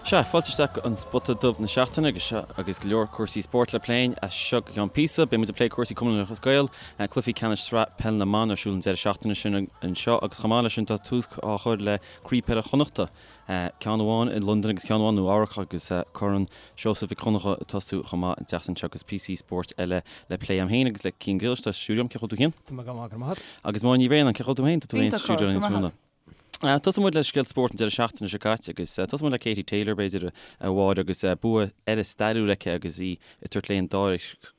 Sea, fáilte isteach go An Spota Dubh na seachtaine agus seo agus go leor cúrsaí spóirt le plé as seo go ceann píosa. Beidh muid ag plé cúrsaí Cumann Lúthchleas Gael, cluichí ceannais sraith peil na mban ar siúl an deireadh seachtaine sin anseo agus chomh maith leis sin tá tús á chur le Craobh Peile Chonnachta, ceann amháin i Londain agus ceann amháin i Nua Eabhrac agus Corn Seosamh Mhic Dhonncha ag tosú chomh maith an tseachtain seo agus píosaí spóirt eile le plé agam féin agus le Cian Griallais atá sa stiúideo liom. Cén chaoi a bhfuil tú Cian? Tá mé go maith, go raibh maith agat. Agus Máire Ní Bhraonáin, cén chaoi a bhfuil tú féin? Tá tú féin sa stiúideo linn tráthnóna. Tosóidh muid le scéal spóirt an deireadh seachtaine seo caite agus tosóidh muid le Katie Taylor, b'fhéidir, a Mháire, agus bua eile stairiúil aici agus í ag tabhairt léi an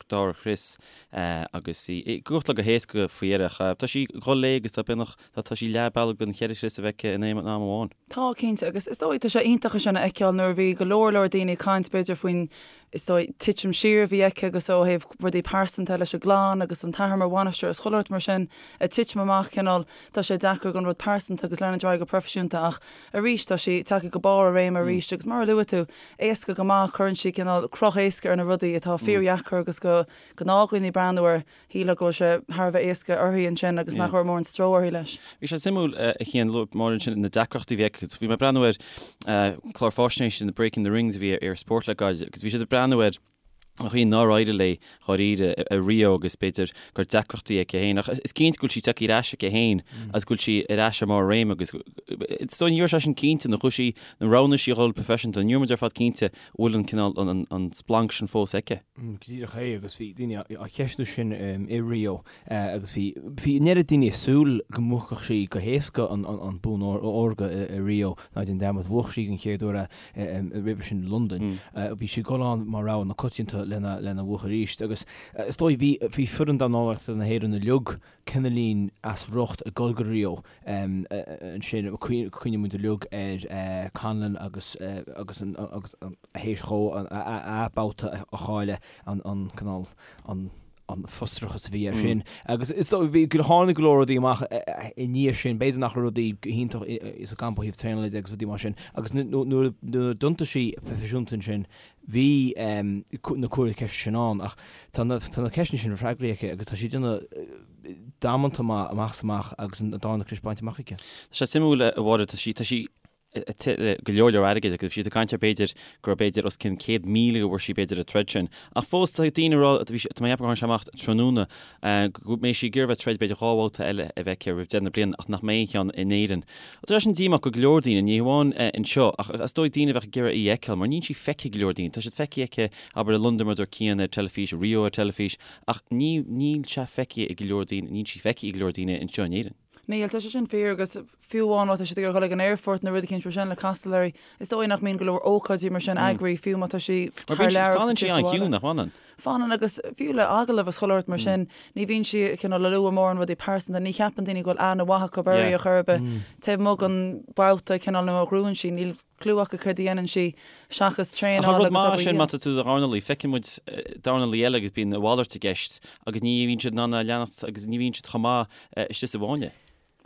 dara crios agus í ag gabháil go héasca faoi dheireadh. Tá sí ag dul léi agus tá beagnach, tá sí leath bealaigh den cheithre chrios a bheith aici in aon am amháin. Tá, cinnte, agus is dóigh, tá sé iontach é sin a fheiceáil nuair a bhí go leor leor daoine ag caint b'fhéidir faoin is dóigh, titim siar a bhí aici agus ó thaobh rudaí pearsanta leis an gclann agus an t-athair mar bhainisteoir is chuile shórt mar sin ag titim amach cineál, tá sé deacair don rud pearsanta agus leanúint ar aghaidh go proifisiúnta ach arís tá sí tagtha go barr a réime arís agus mar a luaigh tú, éasca go maith, cuireann sí cineál cruth éasca ar na rudaí atá fíordheacair agus do ghnáthdhaoine breathnú air. Shílfeá go bhfuil sé thar a bheith éasca uirthi ansin agus nach raibh mórán stró uirthi leis. Bhí sé suimiúil a Chian, luaigh Máire ansin na deacrachtaí a bhí aici. Bhí mé ag breathnú ar clár fáisnéise na Breaking the Rings a bhí ar Sport le gairid agus bhí siad ag breathnú ar an chaoi nár éirigh léi dháiríre i Rio agus b'fhéidir go raibh deacrachtaí aici féin ach is cinnte go bhfuil sí tagtha ar ais aici féin agus go bhfuil sí ar ais ar mbarr a réime agus so ní raibh sé sin cinnte nuair a chuaigh sí nuair a roghnaigh sí a dhul proifisiúnta ní raibh muid ar fad cinnte bhfuil an cineál an splanc sin fós aici. Go díreach é agus bhí daoine á cheistiú sin i Rio agus bhí bhí an oiread daoine ag súil go mbuafadh sí go héasca an bonn órga i Rio ná déan dearmad bhuaigh sí den chéad uair é roimhe sin i Londain. Bhí sí ag dul ann mar rogha na coitianta lena lena bhuachan arís agus is dóigh bhí bhí foireann dornálaíochta na hÉireann uilig cineáilín as riocht ag dul go Rio ansin cuimhníonn muid uilig ar Conlan agus agus agus théis dhó a babhta a chailleadh an cineál an an frustrachas a bhí air sin. Agus is dóigh bhí tháinig go leor rudaí amach i ndiaidh sin, b'fhéidir nach raibh rudaí go hiontach sa gcampa ó thaobh traenála de agus rudaí mar sin. Agus nuair a d'iontaigh sí proifisiúnta ansin, bhí na cuireadh ceiste sin ann ach tá na tá na ceisteanna sin freagraithe aici agus tá sí ag déanamh damanta maith amach is amach agus an darna crios bainte amach aici. Tá sé suimiúil a Mháire, tá sí tá sí go leor leor airgid agus bhí siad ag caint ar b'fhéidir go raibh b'fhéidir os cionn 100,000 a bhfuair sí b'fhéidir ag troid sin. Ach fós tá daoine ag rá, bhí sé, tá mé ag ceapadh gur tháinig sé amach tráthnóna, go mbeidh sí ag iarraidh bheith ag troid b'fhéidir 2 bhabhta eile a bheith aici roimh deireadh na bliana ach nach mbeidh aon cheann in Éirinn. Tá sé sin díomách go go leor daoine, ní hamháin anseo ach is dóigh daoine a bheadh ag iarraidh í a fheiceáil mar níl sí feicthe ag go leor daoine. Tá siad feicthe aici, abair i Londain mar a dúirt Cian ar teilifís, Rio ar teilifís ach ní, níl sé feicthe ag go leor daoine, níl sí feicthe ag go leor daoine anseo in Éirinn. Níl, tá sé sin fíor agus fiú amháin má tá siad ag iarraidh dul ag an aerfort nó rud eicínt mar sin le castáil uirthi, is dóigh nach mbíonn go leor ócáidí mar sin eagraithe fiú má tá sí Mar thar bíonn sí, lear agus fanann ag sí tíocht abhaile. an-chiúin, nach bhfanann? Fanann agus fiú le agallamh is chuile shórt mar sin, ní bhíonn sí cineál ag lua mórán rudaí pearsanta, ní cheapann daoine go bhfuil aithne mhaith acu uirthi ar chor ar bith. Taobh amuigh den bhabhta cineál nuair a ghnóthaíonn sí, níl cliú acu céard a dhéanann sí seachas Ach an traenáil rud agus maith obair sin má dhian. tá tú i do dhornálaí, feiceann muid dornálaí eile agus bíonn a mhalairt i gceist agus ní bhíonn siad in ann a leanacht agus ní bhíonn siad chomh maith istigh sa bhfáinne.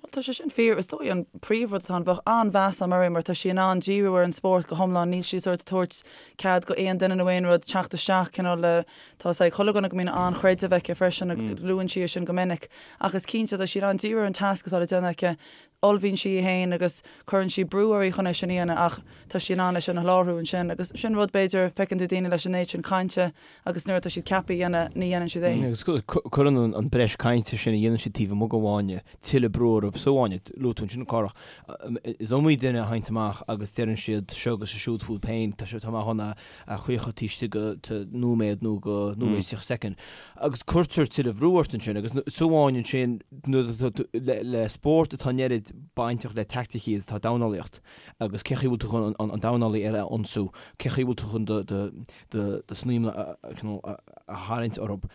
Bhuel, tá sé sin fíor. Is dóigh an príomhrud atá ann, bheadh an-mheas agam uirthi mar tá sí in ann díriú ar an spórt go hiomlán, níl sí sórt ag tabhairt cead go aon duine nó aon rud teacht isteach, cineál le, tá a fhios ag chuile dhuine go mbíonn an-chreideamh aici freisin agus luann sí é sin go minic. Ach is cinnte, tá sí in ann díriú ar an tasc atá le déanamh aici, ullmhaíonn sí í féin agus cuireann sí brú uirthi chun é sin a dhéanamh ach tá sí in ann é sin a sholáthar ansin agus sin rud b'fhéidir, feiceann tú daoine leis an méid sin cainte agus nuair atá siad ceaptha a dhéanamh ní dhéanann siad é. Agus cuireann an breis cainte sin a dhéanann siad taobh amuigh den bhfáinne tuilleadh brú orthu sa bhfáinne. Luaigh tú ansin Cárthach, is iomaí duine a thagann amach agus deireann siad seo agus siúd fúthu féin, tá sé, tá mé chun a chaochadh taobh istigh de nóiméad nó de nóiméad is 30 soicind. Agus cuirtear tuilleadh bhrú ort ansin agus sa bhfáinne ansin nuair atá tú le spórt atá an oiread bainteach le teaicticí is atá dornálaíocht agus cé chaoi bhfuil tú chun an dornálaí eile a ionsú, cé chaoi bhfuil tú chun do do snaidhm a a tharraingt orthu.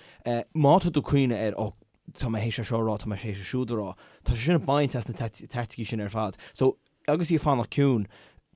Má tá tú ag cuimhneamh ar ó tá mé théis é seo a rá, tá mé théis é siúd a rá, tá sé sin ag baint as na teaicticí sin ar fad. So agus í ag fanacht ciúin,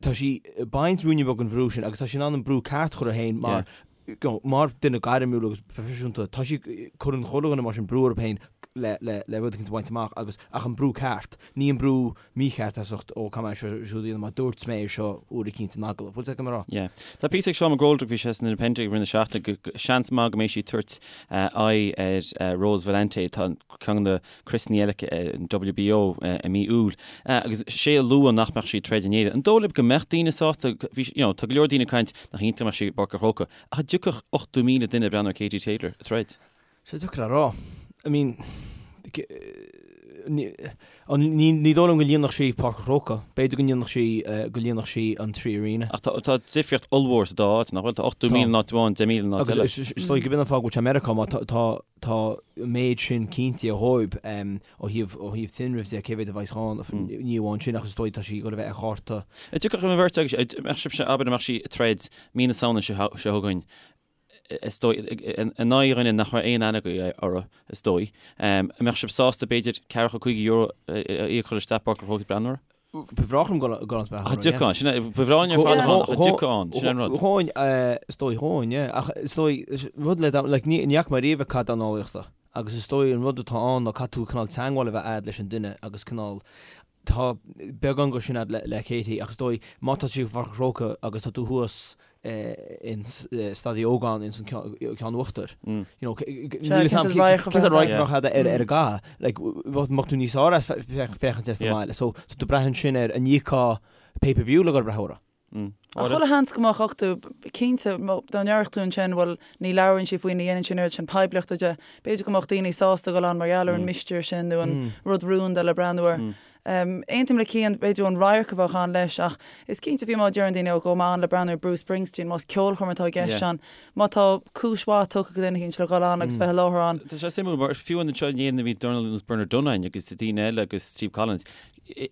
tá sí ag baint ruainne beag den bhrú sin agus tá sí in ann an brú ceart a chur uirthi féin mar, you know, mar duine gairmiúil agus proifisiúnta, tá sí, cuireann chuile dhuine mar sin brú orthu féin. le le rud éicint a bhaint amach agus ach an brú ceart, ní an brú mícheart as ucht ó caithfidh mé seo siúd a dhéanamh mar dúirt mé é seo uair eicínt in agallamh. Bhfuil a fhios agat cad tá mé a rá? Yeah. Tá píosa ag Seán McGoldrick, bhí sé san Independent i rith na seachtaine, go seans maith go mbeidh sí ag tabhairt aghaidh ar Rose Valente, tá ceann de na criosanna eile aici an WBO i mí Iúil, agus sé a luadh nach mbeadh sí ag troid in Éirinn. An dóigh libh go mbeadh daoine sásta, bhí, you know, tá go leor daoine ag caint nach iontach go mbeadh sí i bPáirc an Chrócaigh, ach an dtiocfadh 80,000 duine ag breathnú ar Katie Taylor ag troid? Sé deacair a rá. I mean, ní, ní dóigh liom go líonfadh sí Páirc an Chrócaigh. B'fhéidir go ndéanfadh sí, go líonfadh sí an 3Arena. Ach tá, tá difríocht ollmhór sa dá áit, nach bhfuil? Tá 80,000 in áit amháin, 10,000 in áit eile. Agus is dóigh gurb in an fáth go bhfuil sé i Meiriceá, mar tá, tá, tá an méid sin cinntithe dhóibh ó thaobh, ó thaobh tinrimh de, cé mhéad a bheidh ann, ní amháin sin ach is dóigh tá sí ag dul a bheith ar chárta. An dtiocfadh an bheirt agaibh, an mbeadh sibhse, abair, an mbeadh sí ag troid mí na Samhna seo chugainn, is dóigh, in aghaidh dhuine nach raibh aon aithne agaibh orthu, is dóigh. An mbeadh sibh sásta, b'fhéidir, ceathracha €50 a íoc chun isteach Páirc an Chrócaigh breathnú uirthi? Ba bhreá liom dul ann breathnú Ach an dtiocfá ann, sin é, ba bhreá linn ar fad a bheith ann, ach an dtiocfá ann, sin é an rud. Ghabhfainn, is dóigh, ghabhfainn, yeah. Ach is dóigh, rud le, like, ní fhaca mé riamh cath dornálaíochta. Agus is dóigh an rud atá ann ná caithfidh tú cineál teagmháil a bheith a'd leis an duine agus cineál, tá beagán go sin a'd le Katie ach is dóigh má tá sí i bPáirc an Chrócaigh agus tá tú thuas in Staid Uí Ógáin ins an ceann uachtair you know níl 'fhios a'm cén sórt radharc a bheadh a'd ar an gcath like bheadh tú níos fearr as féachaint as do bhaile so tá tú ag brath ansin ar an íocfá pay per view le dhul ag brath uirthi. Ach chuile sheans go mbeadh 80, cinnte, dá ndéarfadh tú ansin, bhuel, ní labhraíonn sí faoi, ní dhéanann sí an oiread sin poiblíochta de, b'fhéidir go mbeadh daoine sásta dul ann mar gheall ar an mistéir sin nó an rud rúnda le breathnú air. Aontaím le Cian, b'fhéidir an radharc a bheadh ann leis ach is cinnte fiú má deireann daoine ó gabhfaidh mé ann le breathnú ar Bruce Springsteen, más ceolchoirm atá i gceist ann, má tá cúis mhaith tugtha ag duine éicint le dhul ann agus bheith i láthair ann. Tá sé suimiúil mar fiú anseo in Éirinn a bhí dornálaí ar nós Bernard Dunne agus daoine eile agus Steve Collins,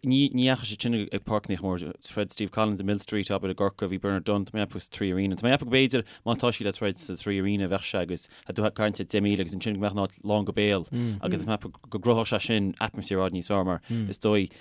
Ní dheachaigh siad sin ag páirceanna móra. Throid Steve Collins i Millstreet, abair, i gCorcaigh, bhí Bernard Dunne, tá mé ag ceapadh, sa 3Arena. Tá mé ag ceapadh go b'fhéidir má tá sí le troid sa 3Arena bheadh sé agus tá tú ag caint ar 10,000 agus ansin go mbeadh an áit lán go béal agus tá mé ag ceapadh go gcruthódh sé sin atmaisféar i bhfad níos fearr mar is dóigh.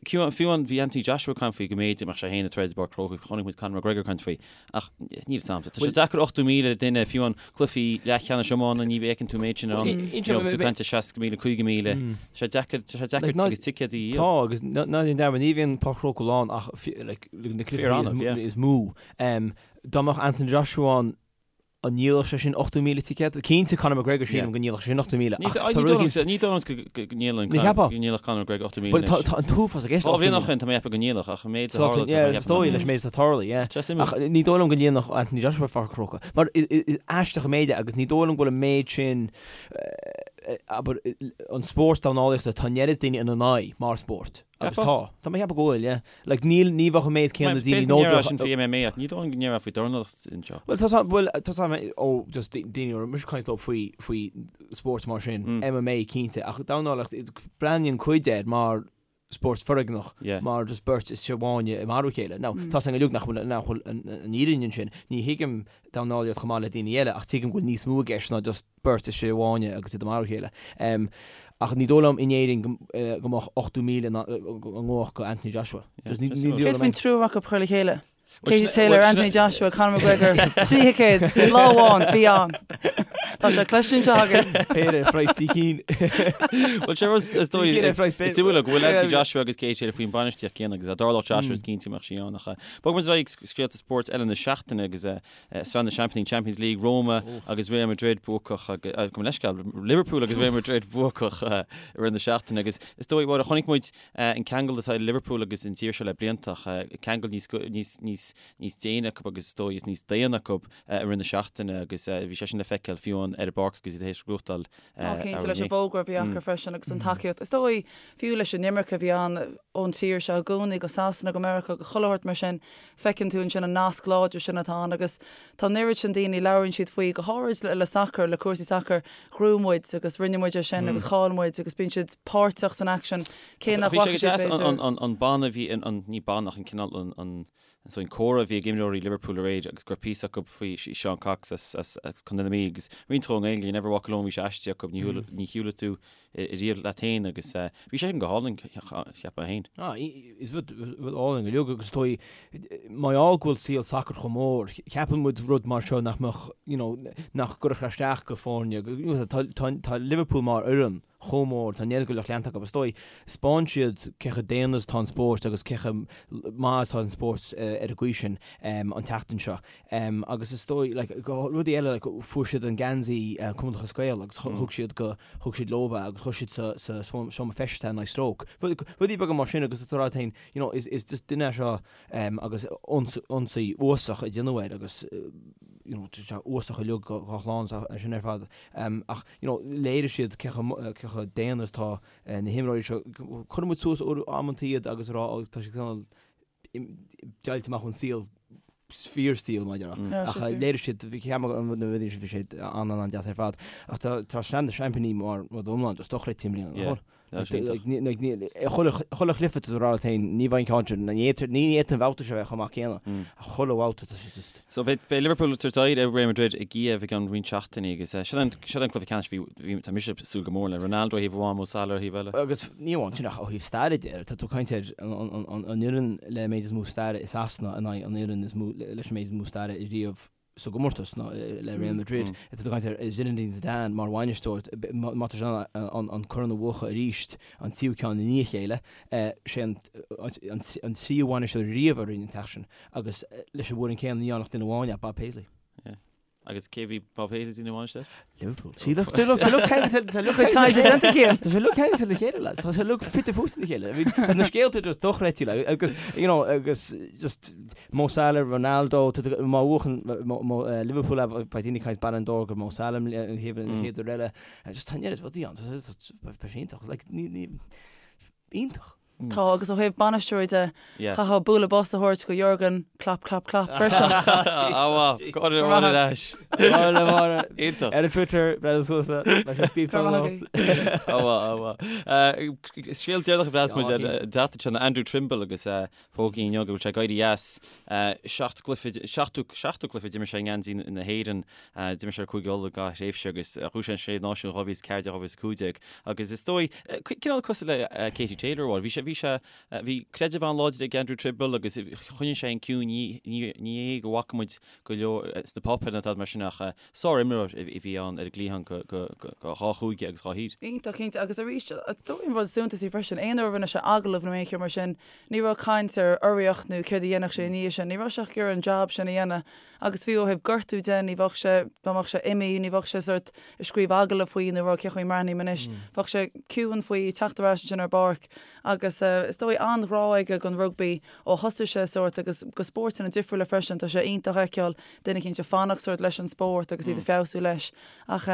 Fiú an bhí Anthony Joshua ag caint faoi go mb'fhéidir go mbeadh sé féin ag troid i bPáirc an Chrócaigh, chonaic muid Conor McGregor ag caint faoi. Ach níl 'fhios a'm. Tá sé deacair 80,000 duine, fiú an cluichí leathcheannais iomána, ní fheiceann tú an méid sin ann. You know, tú ag caint ar 60,000, 50,000. Tá sé deacair, tá sé deacair agus ticéid a dhíol. Tá, agus ná déan dearmad, ní bhíonn Páirc an Chrócaigh lán ach like, na cluichí is mó. Dá mbeadh Anthony Joshua ann, An ndíolfadh sé sin 80,000 ticéad? Cinnte Conor McGregor sílim go ndíolfadh sé sin 80,000 ach tá rud éigin. Ní dóigh liom go ndíolfadh Conor McGregor 80,000 anois. Tá an t-uafás i gceist. Dhá bhliain ó shin tá mé ag ceapadh go ndíolfadh ach an méid a tharla tá mé ag ceapadh. Is dóigh leis an méid atá tarlaithe, yeah. Ach ní dóigh liom go ndíolfadh Anthony Joshua Páirc an Chrócaigh. Mar is aisteach an méid é agus ní dóigh liom go bhfuil an méid sin abair an spórt dornálaíochta tá an oiread daoine ina n-aghaidh mar spórt. Agus tá. Tá mé ag ceapadh go bhfuil, yeah. Like, níl, ní bheadh an méid céanna daoine nó B'fhéidir sin faoi MMA ach ní dóigh liom go ndéarfá faoi dornálaíocht anseo. Bhuel, tá, bhuel, tá tá ó, just daoine a raibh mise ag caint leo faoi, faoi spóirt mar sin, MMA cinnte, ach dornálaíocht, breathnaíonn cuid air mar spórt foréigneach, mar just beirt istigh i bhfáinne ag marú a chéile. Now, tá 's againn uilig nach bhfuil, nach bhfuil an fhírinne ansin. Ní thuigim dornálaíocht chomh maith le daoine eile ach tuigim go bhfuil níos mó i gceist ná just beirt istigh i bhfáinne agus iad ag marú a chéile. Ach ní dóigh liom in Éirinn go mbeadh 80,000 i ngabhadh go Anthony Joshua. Céard faoin triúr acu a chur le chéile? Katie Taylor, Anthony Joshua, Conor McGregor, trí thicéad, lá amháin, bí ann. Tá sé cloiste anseo againn. Péire ar phraghas trí cinn. Bhuel sé rud is dóigh is suimiúil go bhfuil Anthony Joshua agus Katie Taylor faoin bainistíocht céanna agus dá dtarlódh Joshua is cinnte go mbeadh sí ann ach bogfaidh muid ar aghaidh scéalta spóirt eile na seachtaine agus Sraith na Seaimpíní, Champions League, Roma agus Real Madrid buacach, gabh mo leithscéal, Liverpool agus Real Madrid buacach i rith na seachtaine agus is dóigh, Mháire, chonaic muid an ceangal atá idir Liverpool agus an tír seo le blianta ach ceangal níos, níos, níos, níos déine acu agus is dóigh is níos daonna acu i rith na seachtaine agus bhí sé sin le feiceáil fiú ar an bpáirc agus iad tar éis gnóthachtáil Tá cinnte leis an bhfógra a bhí acu freisin agus an tacaíocht. Is dóigh fiú leis an imirce a bhí ann ón tír seo i gcónaí go Sasana, go Meiriceá, go chuile shórt mar sin, feiceann tú ansin an nasc láidir sin atá ann agus tá an oiread sin daoine, labhraíonn siad faoi, go háirid le sacar, le cúrsaí sacair, ghnóthaigh muid agus rinne muid é sin agus chaill muid agus bíonn siad páirteach san aicsean cé nach bhfaca siad b'fhéidir. An banna a bhí, ní banna ach an cineál an So an comhrá a bhí ag imreoirí Liverpool aréir agus go raibh píosa acu faoi Seán Cox as as Contae na Mí agus roinnt dhó i nGaeilge, You never walk alone bhí sé aistrithe acu, ní ní shiúlfaidh tú riamh leat féin agus bhí sé sin go hálainn cheapfainn féin. Ah, is rud rud álainn go leor agus is dóigh mar gheall go bhfuil saol sacair chomh mór, ceapann muid rud mar seo nach mbeadh, you know, nach gcuirfeadh sé isteach go foirne, tá tá Liverpool mar fhoireann. chomh mór, tá an oiread de lucht leanta acu, is dóigh, 'spáin siad cé chomh daonna is atá an spórt agus cé chomh maith is atá an spórt ar an gcaoi sin an tseachtain seo. Agus is dóigh, like, rudaí eile, like, fuair siad an geansaí Cumann Lúthchleas Gael agus thug siad go, thug siad leo é agus chuir siad sa, sa seomra feistis é in aghaidh Stoke. Rudaí beaga mar sin agus is rud féin, you know, is, is just duine é seo agus ionsaí uafásach a déanadh air agus, you know, tá sé uafásach uilig dá chlann is sin ar fad. Ach, you know, léirigh siad cé chomh, cé chomh daonna is atá na himreoirí seo. Cuireann muid suas amantaí iad agus a rá, ó, tá siad cineál deighilte amach ón saol, fíorshaol, mar a déarfá. Ach léirigh siad, bhí ceann na rudaí sin, bhí sé an-an-deas ar fad. Ach tá Sraith na Seaimpíní mar rud iomlán just dochreidte i mbliana, nach bhfuil? Chuile chluiche tá tú ag rá leat féin, ní bheidh an ceann sin, ní fhéadfaidh an babhta seo a bheith chomh maith céanna. Ach chuile bhabhta tá sé just. So beidh Liverpool ag tabhairt aghaidh ar Real Madrid i gCíév i gceann roinnt seachtainí agus sin an cluiche ceannais bhí, tá mise ag súil go mór le Ronaldo ar thaobh amháin, Mo Salah ar thaobh eile. Agus ní amháin sin ach ó thaobh staire de, tá tú ag caint ar an fhoireann le méid is mó staire i Sasana in aghaidh an fhoireann is mó leis an méid is mó staire riamh sa gcomórtas ná le Real Madrid. Tá tú ag caint ar Zinedine Zidane mar bhainisteoir, má tá sé in ann an corn a bhuachan arís, an tríú ceann i ndiaidh a chéile, sé an tríú bhainisteoir riamh a rinne an t-éacht sin agus leis an bhfoireann céanna ní dhearna ach duine amháin é, Bob Paisley. Agus cé bhí Bob Paisley ina bhainisteoir? Liverpool. See look, tá lucht ceangailte tá lucht taighde déanta aige. Tá sé lucht ceangailte le chéile lads. Tá sé lucht fite fuaite le chéile. I mean, tá na scéalta just dochreidte like, agus you know agus just Mo Salah, Ronaldo, tá má bhuachann Liverpool é beidh daoine ag caint Ballon d'Or go Mo Salah an chéad an chéad uair eile. Just tá an oiread rudaí ann. Tá sé iontach. Like ní ní iontach. Tá, agus ó thaobh bainisteoirí de, chaithfeá bualadh bos a thabhairt go Jurgen, clap, clap, clap, freisin. Á, go ar ais. Iontach. Ar an Twitter, Brendan Sousa, leis an scríobh Go raibh maith Á, á, á. Scéal deireanach a bhreas muid ar an tseachtain seo ná Andrew Trimble agus fógraíodh inniu go bhfuil sé ag éirí as. Seacht gcluiche, seachtú, seachtú cluiche d'imir sé i ngeansaí na hÉireann. D'imir sé ar Cúige Uladh dhá thréimhse agus bhuaigh sé an Sé Náisiún 2014, 2015 agus is dóigh, cineál cosúil le Katie Taylor a bhí sé, bhí sé, bhí creideamh an-láidir ag Andrew Trimble agus choinnigh sé an ciúin, ní, ní, ní hé go bhfaca muid go leor sna páipéir ná tada mar sin ach sár-imreoir a bhí ann ar an gcliathán go, go, go, go dhá chúige agus dhá thír. Iontach cinnte agus arís, is dóigh an rud is suntasaí freisin, aon uair a rinne sé agallamh nó aon cheo mar sin, ní raibh caint ar urraíocht nó céard a dhéanfadh sé i ndiaidh sin, ní raibh sé ach ag iarraidh an jab sin a dhéanamh Agus fiú ó thaobh gortú de, ní bheadh sé, dá mbeadh sé imithe, ní bheadh sé sórt ag scríobh agallamh faoi nó ag rá cén chaoi a mbreathnaím anois. Bheadh sé ciúin faoi, teacht ar ais ansin ar an bpáirc. Agus is dóigh an-ghrá aige don rugbaí ó thosaigh sé sórt agus go spóirteanna difriúla freisin. Tá sé iontach a fheiceáil duine eicínt ag fanacht sórt leis an spórt agus iad ag feabhsú leis. Ach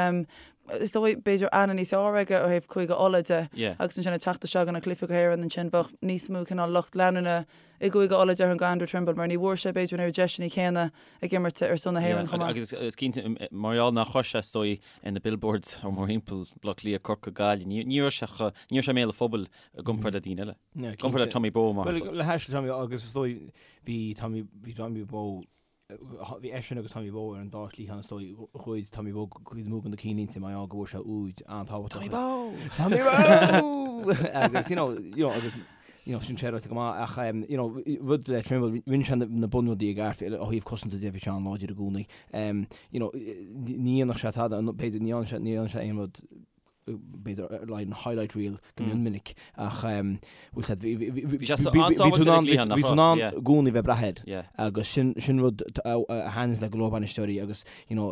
is dóigh b'fhéidir aithne níos fearr aige ó thaobh Cúige Uladh de agus ansin ag teacht isteach go na cluichí go hÉireann ansin bheadh níos mó cineál lucht leanúna i gCúige Uladh déarfainn go Andrew Trimble mar ní bhfuair sé b'fhéidir an oiread deiseanna céanna ag imirt ar son na hÉireann chomh maith. Agus is cinnte mar gheall nach raibh sé is dóigh ar na billboards ó mórthimpeall Baile Átha Cliath, Corcaigh, Gaillimh, ní raibh sé chomh, ní raibh sé i mbéal an phobail i gcomparáid le daoine eile. I gcomparáid le Tommy Bowe mar shampla. Bhuel le hais Tommy agus is dóigh bhí Tommy, bhí Tommy Bowe Bhí eisean agus Tommy Bowe ar an dá chliathán is dóigh. Ghoid Tommy Bowe cuid mhór de na cinnlínte mar gheall go bhfuair sé úid an-tábhachtach. Tommy Bowe! Tommy Bowe! Agus you know, you know, agus you know, sin sé ráite go maith ach um, you know, rud le Trimble, rinne sé na bunrudaí i gceart ó thaobh cosanta de bhí sé an-láidir i gcónaí. Um, you know, ní dhéanfadh sé tada, b'fhéidir ní dhéanfadh sé, ní dhéanfadh sé aon rud b'fhéidir like an highlight reel go mion minic ach bhfuil sé bhí sé an-sábháilte ar an gcliathán bhí tú in ann i gcónaí bheith ag brath air agus sin sin rud a thaitníonns le go leor bainisteoirí agus you know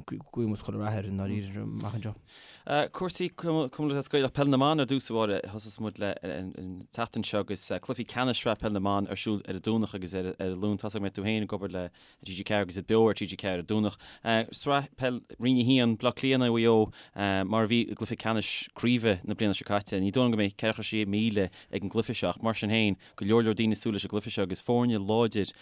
guíonn muid chuile rath air i ndáiríre amach anseo. Cúrsaí Cumann Lúthchleas Gael Peil na mBan ar dtús a Mháire thosaigh muid le an tseachtain seo agus cluichí ceannais Sraith Peil na mBan ar siúl ar an Domhnach agus ar an Luan. Tá a fhios agam go mbeidh tú féin ag obair le TG4 agus iad beo ar TG4 ar an Domhnach. Sraith Peil Roinn 1, Bleá Cliath in aghaidh Mhaigh Eo, mar a bhí i gcluiche ceannais craoibhe na bliana seo caite. Ní dóigh liom go mbeidh 46,000 ag an gcluiche seo ach mar sin féin, go leor leor daoine ag súil leis an gcluiche seo agus foirne láidir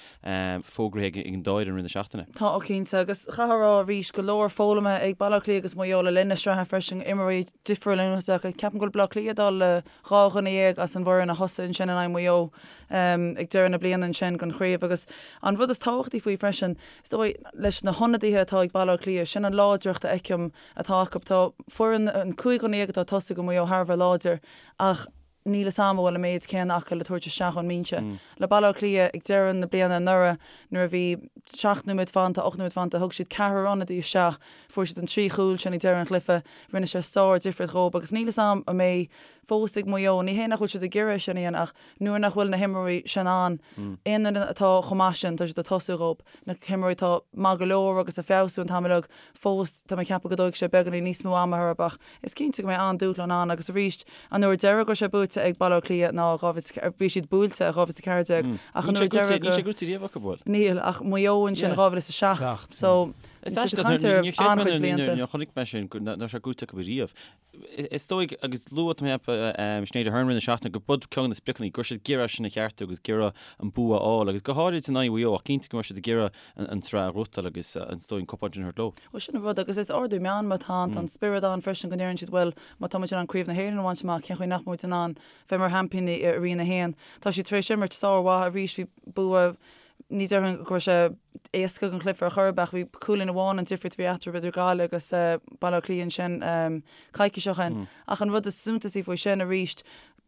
fógraithe ag an dá fhoireann i rith na seachtaine. Tá, ó cinnte, agus chaithfeá a rá arís, go leor foghlamtha ag Baile Átha Cliath agus Maigh Eo le linn na sraithe freisin, imreoirí difriúla in úsáid acu. Ceapaim go bhfuil Bleá Cliath ag dul le 12 dhuine as an bhfoireann a thosaigh ansin in aghaidh Mhaigh Eo ag deireadh na bliana ansin don chraobh agus an rud is tábhachtaí faoi freisin, is dóigh, leis na hionadaithe atá ag Baile Átha Cliath, sin an láidreacht a fheicim atá acu. Tá foireann, an 15 dhuine atá ag tosaí do Mhaigh Eo thar a bheith láidir ach níl fhios a'm an bhfuil an méid céanna acu le tabhairt isteach ón mbinse. Le Baile Átha Cliath ag deireadh na bliana anuraidh nuair a bhí. 7 nóiméad fanta, 8 nóiméad fanta, thug siad ceathrar ionadaí isteach, fuair siad an trí chúl sin ag deireadh an chluiche, rinne sé sár-difríocht dhóibh agus níl 'fhios a'm an mbeidh fós ag Maigh Eo, ní hé nach bhfuil siad ag iarraidh é sin a dhéanamh ach nuair nach bhfuil na himreoirí sin ann, aon duine atá chomh maith sin, tá siad ag tosú dhóibh, na himreoirí atá maith go leor agus ag feabhsú an t-am uilig, fós tá mé ag ceapadh go dtógfaidh sé beagáinín níos mó ama orthu ach is cinnte go mbeidh an-dúshlán ann agus arís an uair deireadh go raibh sé buaite ag Baile Átha Cliath ná 20, bhí siad buailte i 2014 ach an uair deireadh go. Níl sé buaite riamh acu, bhfuil? Níl ach Maigh Eo ansin 2007 so Is aisteach, níor chreid mé nuair a chonaic mé sin go raibh sé buaite acu riamh. Is dóigh, agus luaigh mé Sinéad Aherne i rith na seachtaine, gur b'iod ceann de na spriocanna, go raibh siad ag iarraidh sin a cheartú agus ag iarraidh an bua a fháil, agus go háirid in aghaidh Mhaigh Eo, ach cinnte go mbeidh siad ag iarraidh an tsraith a ghnóthachtáil agus is dóigh an cupán sin a thabhairt leo. Bhuel, sin an rud, agus is ardú meanma atá ann, tá an spiorad ann freisin go ndeireann siad, bhuel, má tá muid in ann Craobh na hÉireann a bhaint amach, cén chaoi nach mbeidh muid in ann bheith mar sheaimpíní i Roinn 1? Tá siad tar éis imirt sármhaith arís, bhí bua Ní déarfainn go raibh sé éasca an cluiche ar chor ar bith ach bhí cúilín amháin an difríocht a bhí eatarthu idir Gaillimh agus Baile Átha Cliath ansin coicís ó shin. Ach an rud is suntasaí faoi sin arís,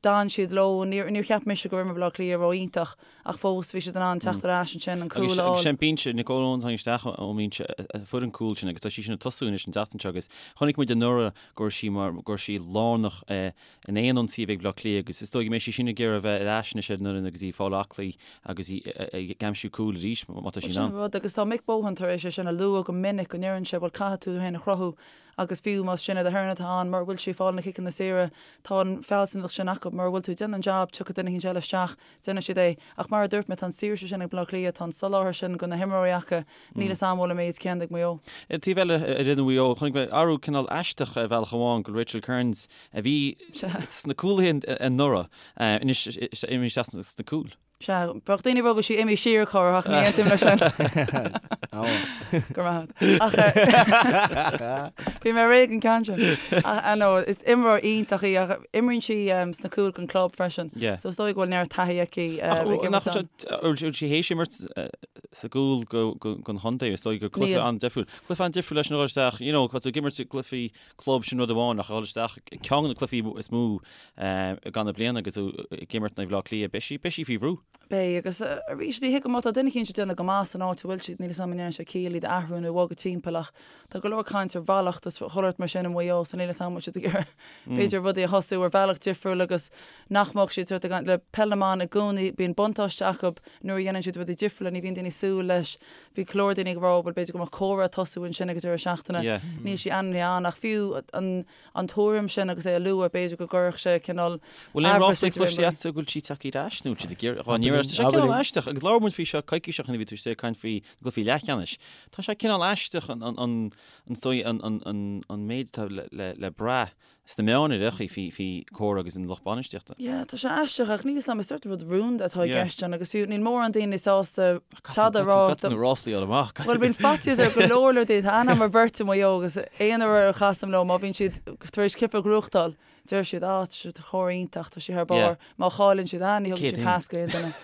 d'fhan siad leo. Níor níor cheap mise go raibh imirt Bhaile Átha Cliath ró-iontach ach fós bhí siad in ann teacht ar ais ansin, an cúl a fháil. Agus sé an binse, Nicole Owens tháinig isteach ón mbinse a fuair an cúl sin agus tá sí sin ag tosú anois an tseachtain seo agus chonaic muid anuraidh go raibh sí mar go raibh sí lárnach in aon ionsaí a bhí ag Baile Átha Cliath agus is dóigh go mbeidh sí sin ag iarraidh a bheith ar ais anois ar an fhoireann agus í ag fáil aclaí agus í ag aimsiú cúil arís má tá sí in ann. Sin an rud agus tá Mick Bohan tar éis é sin a lua go minic go ndeireann sé bhuel caithfidh tú féin a chruthú agus fiú más Sinéad Aherne atá ann mura bhfuil sí ag fáil na ciceanna saora tá an fealsúnacht sin acu mura bhfuil tú ag déanamh an jab tiocfaidh duine éicint eile isteach déanfaidh siad é. Ach mar a dúirt mé tá an saoirse sin ag Baile Átha Cliath tá an soláthar sin do na himreoirí acu Níl fhios a'm an bhfuil an méid céanna ag Maigh Eo. Ar an taobh eile, ar fhoireann Mhaigh Eo, chonaic mé athrú cineál aisteach ar bhealach amháin go bhfuil Rachel Kearns, a bhí sna cúlaithe anuraidh, anois imithe isteach sna cúil. Sea, bheadh daoine ag rá go bhfuil sí imithe siar a chara ach ní aontaím leis sin. Go raibh maith agat. Ach bhí mé réidh an ceann sin. Ach no, is imreoir iontach í ach imríonn sí sna cúil don club freisin. So is dóigh go bhfuil neart taithí aici ag imirt ann. Bhfuil sí théis imirt sa gcúl don chontae, is dóigh gur cluiche an-difriúil. Cluiche an-difriúil leis an dhul isteach, you know, tá tú ag imirt i gcluichí club sin rud amháin ach a dhul isteach ceann de na cluichí is mó i gcaitheamh na bliana agus tú ag imirt in aghaidh Bhaile Átha Cliath, beidh sí, beidh sí faoi bhrú. Beidh, agus arís ní thuigim má tá duine eicínt ag déanamh go maith san áit a bhfuil siad, níl 'fhios a'm an ndéanann sé ciall iad a athrú nó a bhogadh timpeall ach tá go leor caint ar mhallacht is chuile shórt mar sin i Maigh Eo so níl 'fhios a'm an bhfuil siad ag iarraidh b'fhéidir rudaí a thosú ar bhealach difriúil agus nach mbeadh siad sort ag le peil na mban i gcónaí bíonn buntáiste acu Nuair a dhéanann siad rudaí difriúla, ní bhíonn daoine ag súil leis. Bhí go leor daoine ag rá, bhuel, b'fhéidir go mbeadh Cora ag tosú ansin ag an deireadh seachtaine. Níl sí ainmnithe ann ach fiú an an tuairim sin agus é a lua, b'fhéidir go gcuirfeadh sé cineál Bhfuil aon ráflaí cloiste agatsa go bhfuil sí tagtha ar ais nó siad ag iarraidh dhá n-iarraidh? Tá sé cineál aisteach agus labhair muid faoi seo coicís ó shin a bhí tú ag caint faoi na gcluichí leathcheannais. Tá sé cineál aisteach an an an an dóigh an an an an méid atá le le le brath sna meáin ar aon chaoi faoi faoi Cora agus an lucht bainistíochta. Yeah, tá sé aisteach ach níl 'fhios a'm, is sort rud rúnda atá i gceist ann agus fiú níl mórán daoine sásta tada a rá. Caithfidh na ráflaí a fháil amach. Bhuel bíonn faitíos ar go leor leor daoine, tá aithne agam ar bheirt i Maigh Eo agus aon uair a chasaim leo má bhíonn siad tar éis cluiche a ghnóthachtáil, deir siad ah tá siad chomh iontach, tá sí thar barr. Má chailleann siad ah ní thugann sí pas go aon duine.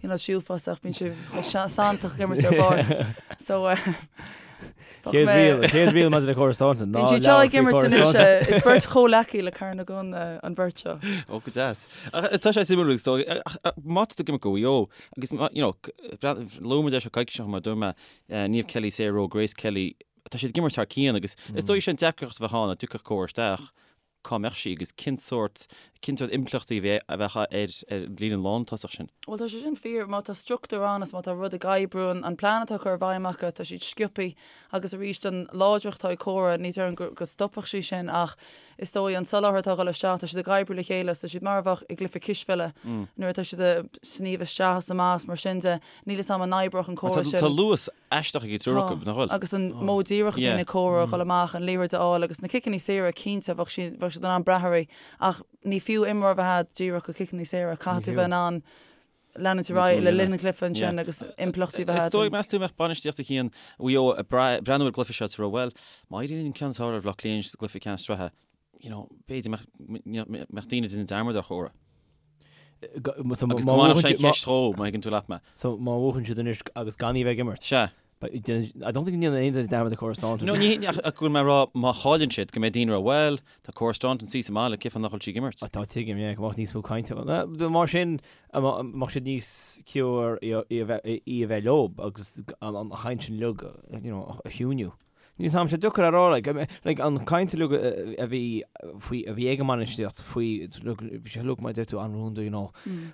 You know, siúlfása ach bíonn sé chomh santach ag imirt ar barr. So eh, Chéad riail, chéad riail maidir le Cora Staunton, ná Bíonn siad seo ag imirt anois, eh, is beirt chomhleacaí le Carna Gunn eh, an bheirt seo. Ó, go deas. Ach eh, tá sé suimiúil agus dóigh, ach, ach, má tá tú ag imirt do Mhaigh Eo, agus má- you know, c- breath- luaigh muid é seo coicís ó shin mar dúirt mé, eh, Niamh Kelly, Sarah Rowe, Grace Kelly, tá siad ag imirt thar cionn agus is dóigh sin deacracht a bheadh ann dá dtiocfadh Cora isteach, cá mbeadh sí agus cén sórt, cén sórt impleachtaí a bheadh ar ar an líne lántosach sin? Bhuel, tá sé sin fíor. Má tá struchtúr ann is má tá rud ag oibriú, an plean atá curtha i bhfeidhm acu, tá siad sciobthaí agus arís an láidreacht atá ag Cora, ní déarfainn go go stopfadh sí sin ach is dóigh an soláthar atá ag dul isteach, tá siad ag oibriú le chéile is tá siad mar a bheadh i gcluiche cispheile nuair atá siad ag sníomh isteach is amach is mar sin de. Níl 'fhios a'm an oibreodh an córas sin. Tá luas aisteach ag an triúr acu, nach bhfuil? Agus an modh díreach a bhíonn ag Cora a dhul amach, an liathróid a fháil agus na ciceanna saora, cinnte, bheadh siad, bheadh siad in ann brath uirthi. Ach ní fiú imreoir a bheith a'd díreach do chiceanna saora, caithfidh tú bheith in ann leanúint ar aghaidh le linn an chluiche ansin agus impleachtaí a bheith a'd. Is dóigh, meas tú, mbeadh bainistíocht a chinn Mhaigh Eo ag breathnú ar an gcluiche seo is ag rá, bhuel, má éiríonn an ceann is fearr ar Bhaile Átha Cliath sa gcluiche ceannais sraithe, you know, b'fhéidir mbeadh daoine ag déanamh dearmad ar Chora. Agus go mbainfeadh sé an cheist dhó, má thuigeann tú leat mé. So má bhuachann siad anois agus gan í bheith ag imirt? Sea. I don't think go ndéanann aon duine dearmad ar Cora Staunton. No, ní ach go bhfuil mé ag rá má chailleann siad go mbeidh daoine ag rá bhuel, tá Cora Staunton suí sa mbaile, cén fáth nach bhfuil sí ag imirt? Tá, tuigim, yeah, go mbeadh níos mó cainte. Mar sin, mbeadh siad níos ciúire í a bheith leo agus an chaint sin uilig, you know, a chiúiniú. Níl 's a'm, sé deacair a rá, like, like, an chaint uilig a bhí faoi, a bhí ag an mbainistíocht faoi, look, bhí sé uilig mar a deir tú an-rúnda, you know,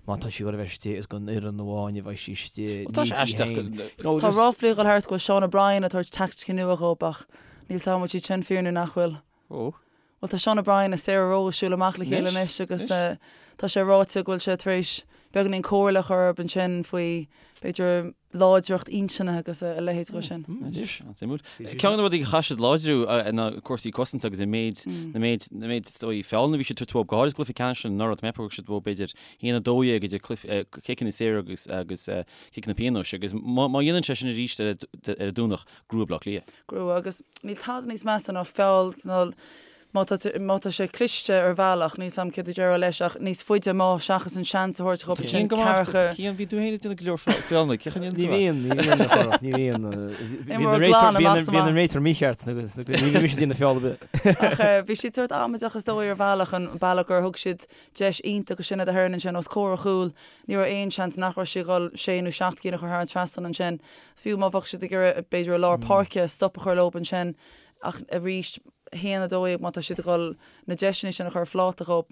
má tá sí ag dul a bheith istigh is don fhoireann amháin a bheidh sí istigh, Tá sé ní di aisteach féin. go- You know, Tá just, ráflaí ag dul thart go bhfuil Sean O'Brien ag tabhairt teaicticí nua dhóibh ach níl 's a'm an bhfuil siad sin fíor nó nach bhfuil. Ó. Bhuel tá Sean O'Brien is Sarah Rowe ag siúl amach le chéile Anois, anois agus anois. tá sé ráite go bhfuil sé tar éis beagáinín comhairle a chur orthu ansin faoi b'fhéidir láidreacht intinne agus a leithéid de sin. Anois, an-suimiúil. Ceann de na rudaí a chaith siad láidriú ná cúrsaí cosanta agus an méid, na méid, na méid is dóigh feallanna a bhí siad ag tabhairt uathu, go háirid cluiche ceannais anuraidh, tá mé ag ceapadh gur thug siad uathu b'fhéidir 1-12 idir cluiche, ciceanna saora agus, agus ciceanna pionóis agus má, má dhéanann sé sin arís ar an Domhnach, grua Bleá Cliath. Grua agus níl tada níos measa ná feall cineál má tá má tá sé cliste ar bhealach, níl 's a'm céard a déarfá leis ach níos faide amach seachas an seans a thabhairt dhóibh ansin Cian go maith, ceathracha. Cian, bhí tú féin ag déanamh go leor feallanna, cén chaoi a ndéanann Ní tú é? bhíonn, ní bhíonn a Chárthach, ní bhíonn. Bíonn an Imreoir réiteoir, glan bíonn amach an, is bíonn an amach. réiteoir mícheart agus ní bhíonn mise ag déanamh feall ar bith. Ach bhí siad sórt amaideach is dóigh ar bhealach, an bealach gur thug siad deis iontach ansin do Heron ansin os comhair a chúil, ní raibh aon seans nach raibh sí ag dul sé nó seacht gcinn a chur thar an trasnán ansin. Fiú má bheadh siad ag iarraidh b'fhéidir i lár páirce stop a chur leob ansin ach arís 1-12 má tá siad ag dul na deiseanna sin a chur ar phláta dhóibh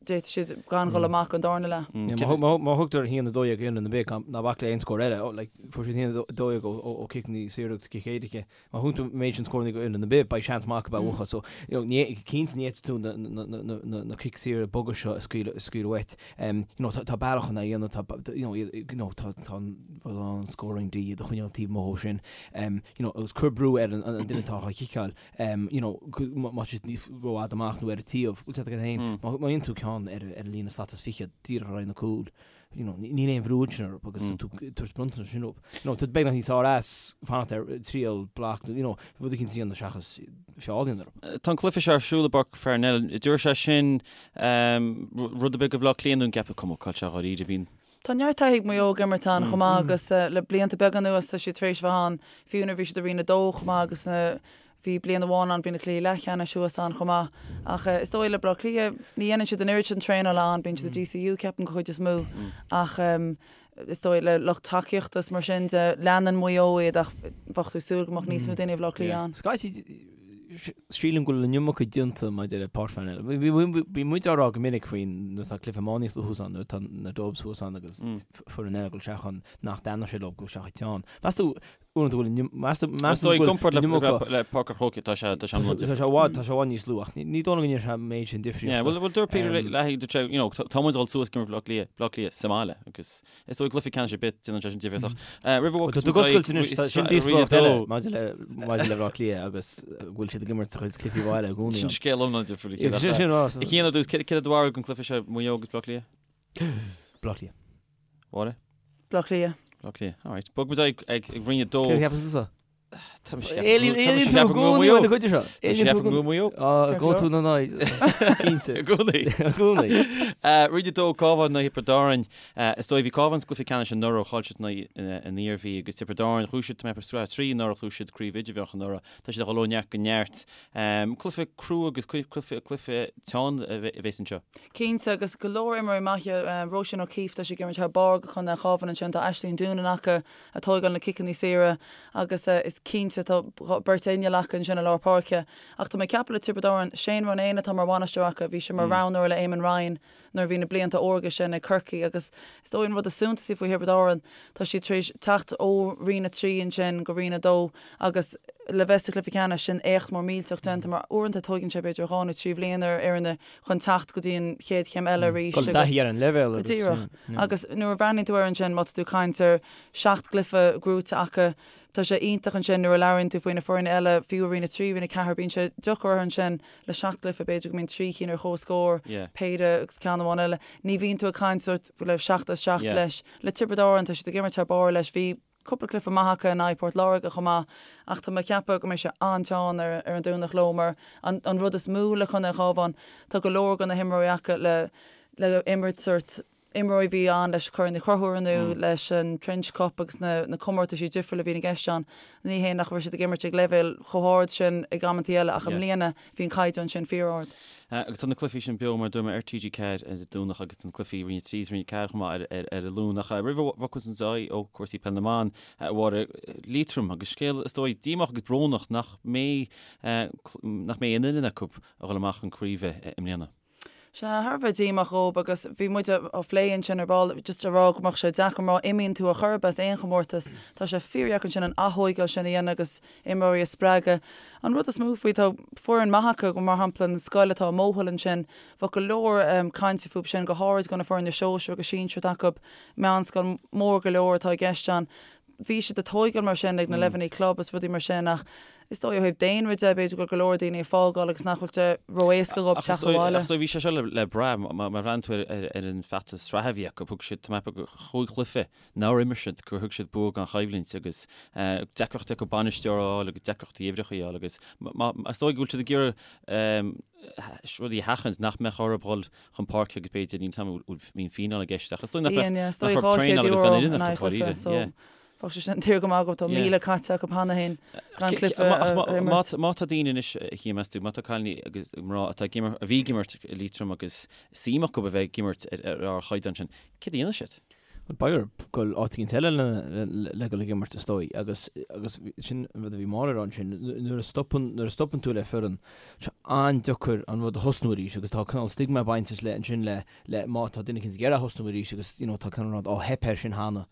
d'fhéadfadh siad gan dhul amach an darna leath. Má thugtar 1-12 d'fhoireann ar bith ná bac le aon scór eile, like, fuair siad 1-12 ó ciceanna saora agus cic éirice. Má thugann tú an méid sin scóranna go fhoireann ar bith, beidh seans maith acu a bhuachan. So, you know, ní, cinnte ní fhéadfaidh tú na, na, na, na, na, na cic saora boga seo a scaoileadh, a scaoileadh uait. Um, you know, tá, tá bealach chun é a dhéanamh, tá, you know, you know, tá, tá an rud ann, an scoring D, iad a choinneáil taobh amuigh ó sin. Um, you know, agus cuir brú ar an, an, an duine atá á chiceáil. Um, you know, má, má tá siad níos rófhada amach nó ar an taobh, bhfuil siad agat féin, má, má dhéanann tú ceann ar, ar an líne slat is fichead, díreach ar aghaidh na cúil, you know, níl aon bhrú ansin orthu agus tú ag tabhairt bronntanas sin dóibh. You know, tá beagnach níos fearr as fanacht ar triail block nó, you know, rud eicínt a dhéanamh seachas feall a dhéanamh orthu. Tá an cluiche seo ar siúl i bPáirc Pharnell. An dtabharfaidh sé sin rud ar bith do Bhleá Cliath nó an gceapfá cuma cá bhfuil sé dháiríre, bíonn. Tá neart taithí ag Maigh Eo ag imirt ann chomh maith agus le blianta beaga anuas tá siad tar éis bheith ann, fiú nuair a bhí siad i Roinn 2 chomh maith agus na Bhí bliain amháin ann, bhí na cluichí leathcheannais thuas ann chomh maith. Ach is dóigh le Bleá Cliath, ní dhéanann siad an oiread sin traenála ann, bíonn siad i DCU ceapaim go chuid is mó. Ach is dóigh le lucht tacaíochta is mar sin de, leanann Maigh Eo iad ach bheadh tú ag súil go mbeadh níos mó daoine i Bhleá Cliath ann. Scaití, sílim go bhfuil an iomarca déanta maidir le Páirc Pharnell. Bíonn muid á rá go minic faoi nuair atá cluiche iománaíochta thuas ann, nuair atá na Dubs thuas ann agus foireann eile ag dul isteach ann nach dtaitneodh sé leo dul isteach ag teann. Meas tú, Uaireanta bhfuil an meas Is dóigh i gcomparáid le le Páirc an Chrócaigh tá sé tá sé Tá sé i bhfad tá sé i bhfad níos lú ach ní dóigh liom go ndéanann sé an méid sin difríochta. Yeah, well well dúirt Peter Leahy dúirt sé you know tá muid ag dul suas ag imirt Bhleá Cliath Bleá Cliath sa mbaile agus is dóigh cluiche ceannais ar bith déanann sé sin difríocht ach roimh a Tá tú ag oscailt anois tá sin díospóireacht eile maidir le maidir le Bleá Cliath agus go bhfuil siad ag imirt sa chuid cluichí bhaile i gcónaí. Sin scéal iomlán difriúil. Sin sin a Chian ar dtús céard é do bharúil don cluiche seo Maigh Eo agus Bleá Cliath? Bleá Cliath. Máire? Bleá Cliath. Bleá Cliath, alright. Bog muid ag ag Roinn 2. Céard a cheapas tusa? Tá mise Éilíonn éilíonn tú i gcónaí uaidh na cuide seo. Éilíonn tú go Maigh Eo. Á, go tú na n-aghaidh. Cinnte. I gcónaí. I gcónaí. Roinn 2, Cabhán in aghaidh Thiobraid Árann. Is dóigh bhí Cabhán sa gcluiche ceannais anuraidh, chaill siad in aghaidh an Iarmhí agus Tiobraid Árann, ghnóthaigh siad tá mé ag ceapadh Sraith 3 anuraidh, ghnóthaigh siad Craobh Idirmheánach anuraidh. Tá siad ag dul ó neart go neart. Cluiche crua agus cluiche cluiche teann a bheas anseo. Cinnte, agus go leor imreoirí maithe, Róisín O'Keeffe, tá sí ag imirt thar barr do Chontae an Chabháin ansin, tá Aisling Doonan acu ag tógáil na ciceanna saora agus is cinnte tá beirt inneall acu ansin i lár páirce. Ach tá mé ag ceapadh le Tiobraid Árann, Shane Ronayne atá mar bhainisteoir acu, bhí sé mar roghnóir le Eamon Ryan nuair a bhí na blianta órga sin ag Corcaigh agus is dóigh an rud is suntasaí faoi Thiobraid Árann, tá siad tar éis teacht ó Roinn 3 ansin go Roinn 2 agus le bheith sa chluiche ceannais, sin éacht mór millteach déanta mar uaireanta tóigeann sé b'fhéidir dhá nó trí bhliain ar fhoirne chun teacht go dtí an chéad chéim eile arís Dul i dtaithí ar an leibhéal agus. Díreach. Agus nuair a bhreathnaíonn tú air ansin, má tá tú ag caint ar sheacht gcluiche gnóite acu, tá sé iontach ansin nuair a labhraíonn tú faoi na foirne eile, fiú i Roinn 3, Roinn 4, bíonn sé deacair orthu ansin le seacht gcluiche, b'fhéidir go mbíonn trí cinn ar comhscór, péire agus ceann amháin eile. Ní bhíonn tú ag caint sórt le seacht as seacht leis. Le Tiobraid Árann, tá siad ag imirt thar barr leis. Bhí cúpla cluiche maith acu in aghaidh Port Láirge chomh maith ach tá mé ag ceapadh go mbeidh sé an-teann ar ar an Domhnach leo mar an an rud is mó le Contae an Chabháin, tá go leor de na himreoirí acu le le imirt sórt. Imreoirí a bhí ann leis Corn Uí Chonchúir nó leis an Trench Cup agus na na comórtaisí difriúla a bhíonn i gceist ann. Ní hé nach raibh siad ag imirt ag leibhéal chomh hard sin ag amantaí eile ach i mbliana bhí an caighdeán sin fíor-ard. Agus tá na cluichí sin beo mar a dúirt mé ar TG4 ar an Domhnach agus tá na cluichí Roinn 3 is Roinn 4 chomh maith ar ar an Luan. Ach roimh a bhogfas muid ar aghaidh ó chúrsaí peil na mban, a Mháire, Liatroim agus scéal is dóigh díomách agus brónach nach mbeidh nach mbeidh aon fhoireann acu a dhul amach chun craoibhe i mbliana. Sea, thar a bheith díomách dhóib agus bhí muid á phlé ansin ar ball, just a rá go mbeadh sé deacair má imíonn tú ar chor ar bith as aon chomórtas, tá sé fíordheacair ansin an athóigeáil sin a dhéanamh agus imreoirí a spreagadh. An rud is mó faoi, tá foireann maith acu, mar shampla an scoil atá i Mohill ansin, bheadh go leor cainte fúb sin, go háirid go na foirne sóisir agus sinsir atá acu, meánscoil mór go leor atá i gceist ann. Bhí siad ag tóigeáil mar sin ag na leibhéalaí club is rudaí mar sin ach is dóigh ó thaobh daonra de b'fhéidir go bhfuil go leor daoine ag fágáil agus nach bhfuil sé ró-éasca dhóibh teacht abhaile. Ach is dóigh bhí sé seo le brath má bhreathnaíonn tú ar an bhfeachtas sraithe a bhí acu, thug siad, tá mé ag ceapadh chúig chluiche nár imir siad gur thug siad bua gan choimhlint agus deacrachtaí acu bainisteoir a fháil agus deacrachtaí uimhreacha a fháil agus is dóigh go bhfuil siad ag iarraidh rudaí a sheachaint nach mbeadh orthu dhul chun páirce agus b'fhéidir níl a fhios agam an mbíonn fíneáil i gceist ach is dóigh nach mbeadh nach raibh traenáil agus gan fhoireann acu dáiríre. Bheadh sé sin daor go maith acu tá 1,000 caite acu cheana féin gan cluiche a imirt. Má tá daoine anois a Chian meas tú, má tá cailíní agus mná atá ag imirt, a bhí ag imirt i Liatroim agus suim acu a bheith ag imirt ar ardchaighdeán sin, céard a dhéanfaidh siad? Bhuel, beidh orthu dul áit éicint eile le dul ag imirt is dóigh agus agus sin an rud a bhí Máire a rá ansin, nuair a stopann nuair a stopann tú le foireann, tá sé an-deacair an rud a thosnú arís agus tá cineál stigma bainteach le ansin le le má tá duine éicint ag iarraidh thosnú arís agus you know tá cineál rud, á theip air sin cheana,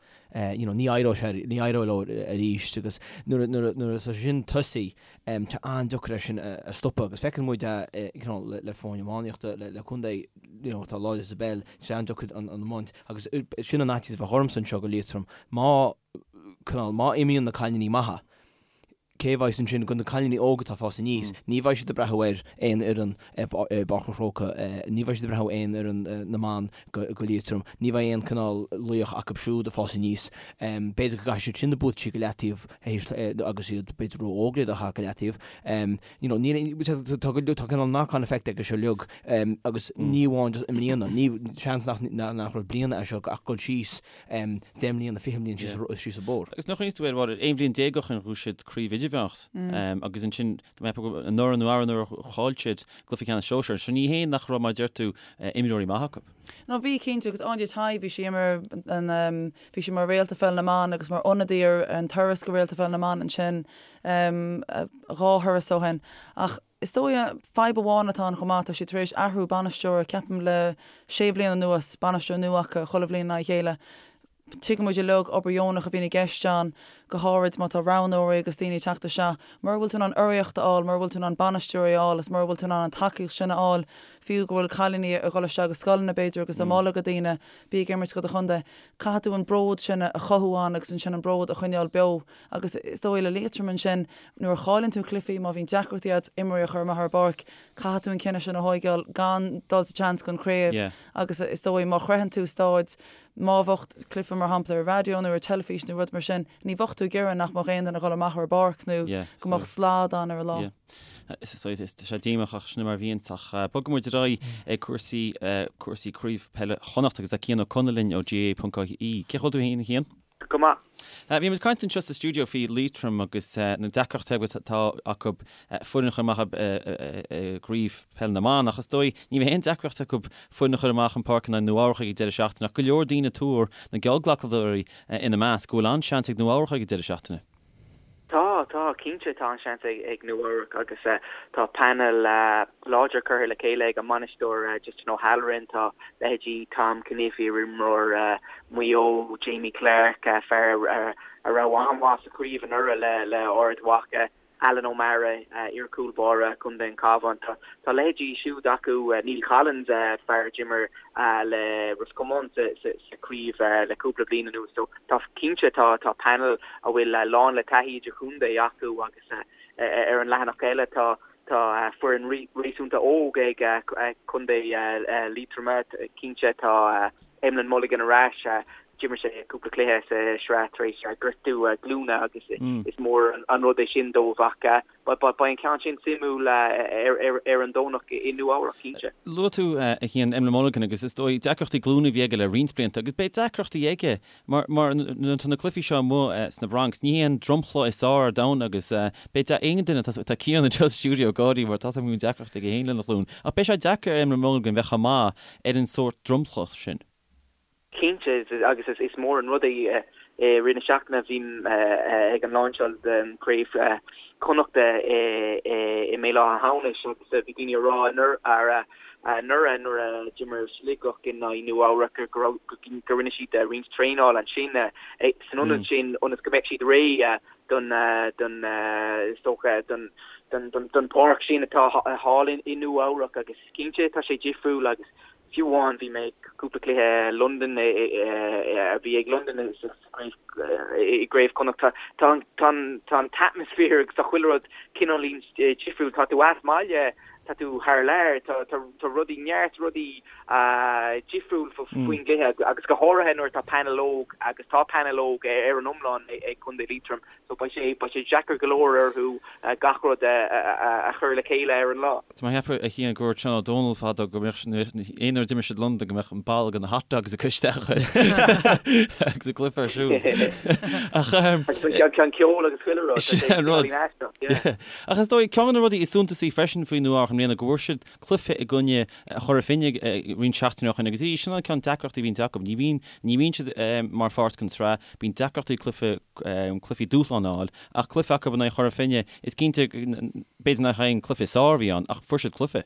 you know ní éireoidh sé ní éireoidh leo arís agus nuair a nuair a nuair atá sé sin tosaithe Tá an-deacair é sin a stopadh agus feiceann muid é you know le foirne iománaíochta, le contae you know atá láidir sa bpeil, tá sé an-deacair an iomáint agus sin an fhaitíos a bheadh ormsa anseo go Liatroim. Má, cineál, má imíonn na cailíní maithe, cé a bheidh ansin do na cailíní óga atá ag fás aníos? Ní bheidh siad ag breathnú ar aon fhoireann i bPáirc an Chrócaigh, ní bheidh siad ag breathnú aon fhoireann na mban go Liatroim, ní bheidh aon cineál laoch acu siúd ag fás aníos. B'fhéidir go gcaithfidh siad sin na buataisí go leataobh agus iad b'fhéidir ró-óg le iad a chaitheamh go leataobh. You know, níl, tá go, tá cineál knock-on effect aige seo uilig agus ní amháin just i mbliana, ní, seans nach, nach raibh bliana é seo ach dul síos 10 mbliana, 20 bliain síos, síos an bóthar. Agus nach cuimhin leat, aon bhliain déag ó shin ghnóthaigh siad craobh idirmheánach agus ansin tá mé ag ceapadh anuraidh nó arú-anuraidh chaill siad cluiche ceannais sóisear. So ní hé nach raibh mar a deir tú imreoirí maithe acu. No bhí cinnte agus Áine Tighe bhí sí imir an bhí sí mar réalta pheil na mban agus mar ionadaí ar an turas go réalta pheil na mban ansin dhá thuras ó shin. Ach is dóigh fadhb amháin atá ann chomh maith tá siad tar éis athrú bainisteora ceapaim le sé bhliain anuas, bainisteoir nua acu chuile bhliain i ndiaidh a chéile. Tuigeann muid uilig obair dheonach a bhíonn i gceist ann, go háirid má tá roghnóirí agus daoine ag teacht isteach. Mura bhfuil tú in ann urraíocht a fháil, mura bhfuil tú in ann bainisteoirí a fháil is mura bhfuil tú in ann an tacaíocht sin a fháil, fiú go bhfuil cailíní ag dul isteach go scoileanna b'fhéidir agus á moladh go daoine, bí ag imirt do do chontae. Caithfidh tú an bród sin a chothú ann agus ansin an bród a choinneáil beo. Agus is dóigh le Liatroim ansin, nuair a chailleann tú cluichí, má bhíonn deacrachtaí agat imreoirí a chur amach ar an bpáirc, caithfidh tú an cinneadh sin a thóigeáil gan dul sa tseans don chraobh agus is dóigh má shroicheann tú stáid Má bheadh cluiche mar shampla ar raidió nó ar teilifís nó rud mar sin, ní bheadh tú ag iarraidh nach mbeadh aon duine ag dul amach ar an bpáirc nó go mbeadh slad ann ar an lá. Is sé díomách ach sin mar a bhíonn ach bogfaidh muid ar aghaidh ag cúrsaí cúrsaí craobh peile Chonnacht agus tá Cian Ó Conaill linn ó GAA.ie. Cén chaoi a bhfuil tú féin a Chian? Go maith. Bhí muid ag caint anseo sa stiúideo faoi Liatroim agus na deacrachtaí atá acu foireann a chur amach i gcraobh peil na mban ach is dóigh ní bheidh aon deacracht acu foireann a chur amach an páirc in aghaidh Nua Eabhrac ag an deireadh seachtaine ach go leor daoine ag tuar, na geallghlacadóirí ina measc, go bhfuil an-seans ag Nua Eabhrac ag an deireadh seachtaine. Tá, tá, cinnte tá an-seans ag Nua Eabhrac agus tá painéal láidir curtha le chéile ag an mbainisteoir Justin O'Halloran. Tá leithéidí Tom Cunniff, iarimreoir Mhaigh Eo, Jamie Clarke, fear a raibh an-mhaith sa chraobh anuraidh le Ard Mhacha, Alan O'Mara, iar-chúl báire Chontae an Chabháin. Tá leithéidí siúd acu, Neil Collins, fear a d'imir le Ros Comáin sa chraobh le cúpla bliain anuas. So tá cinnte tá tá panel a bhfuil lán le taithí idirchontae acu agus ar an leathanach eile tá tá foireann réasúnta óg ag Contae Liatroma. Cinnte tá Emlyn Mulligan ar ais. D'imir sé cúpla cluiche sa sraith tar éis gortú glúine agus is mór an rud é sin dóibh ach beidh an ceann sin suimiúil ar an Domhnach i Nua Eabhrac, cinnte. Luaigh tú, a Chian, Emlyn Mulligan agus is dóigh deacrachtaí glúine a bhí aige le roinnt blianta agus beidh deacrachtaí aige mar mar nuair atá na cluichí seo amuigh sna Bronx, ní hé an dromchla is fearr ar domhan agus beidh aon duine, tá Cian anseo sa stiúideo ag gáirí mar tá a fhios agam go mbíonn deacrachtaí aige féin lena ghlúin ach beidh sé deacair ar Emlyn Mulligan bheith chomh maith ar an sórt dromchla sin. Cinnte, agus is mór an rud é. I rith na seachtaine bhí ag an lainseáil den Chraobh Chonnachta i mBéal Átha hAmhnais agus bhí daoine ag rá anuraidh nuair a d'imir Sligeach in aghaidh Nua Eabhrac go raibh go rinne siad roinnt traenála ansin san ionad sin ionas go mbeadh siad réidh don don is dócha don don páirc sin atá thall i Nua Eabhrac agus cinnte tá sé difriúil agus Fiú amháin bhí mé ag cúpla cluiche Londain a bhí ag Londain i gCraobh Chonnacht. Tá an t-atmaisféar agus tá chuile rud cineáilín difriúil. Tá tú as baile, tá tú thar lear, tá rudaí, neart rudaí difriúil faoin gcluiche agus go háirithe nuair atá painéal óg agus tá painéal óg ar an iomlán ag Contae Liatroim. So beidh sé, beidh sé deacair go leor orthu gach rud a chur le chéile ar an lá. Tá mé ag ceapadh, a Chian, go ndúirt Seán Ó Dónaill fadó go mbeadh, aon uair a d'imir siad Londain go mbeadh an ball de na hot dogs acu isteach agus an cluiche ar siúl. Ach. Agus an ceol agus chuile rud. Sin an rud. Ach is dóigh, ceann de na rudaí is suntasaí freisin faoi Nua Eabhrac i mbliana go bhfuair siad cluiche i gcoinne Chora Finne roinnt seachtainí ó shin agus sin an cineál deacrachtaí a bhíonn acu. Ní bhíonn, ní bhíonn siad mar pháirt den tsraith, bíonn deacrachtaí cluiche, cluichí dúshláin a fháil ach cluiche acu in aghaidh Chora Finne, is cinnte, b'fhéidir nach é an cluiche is fearr a bhí ann ach fuair siad cluiche.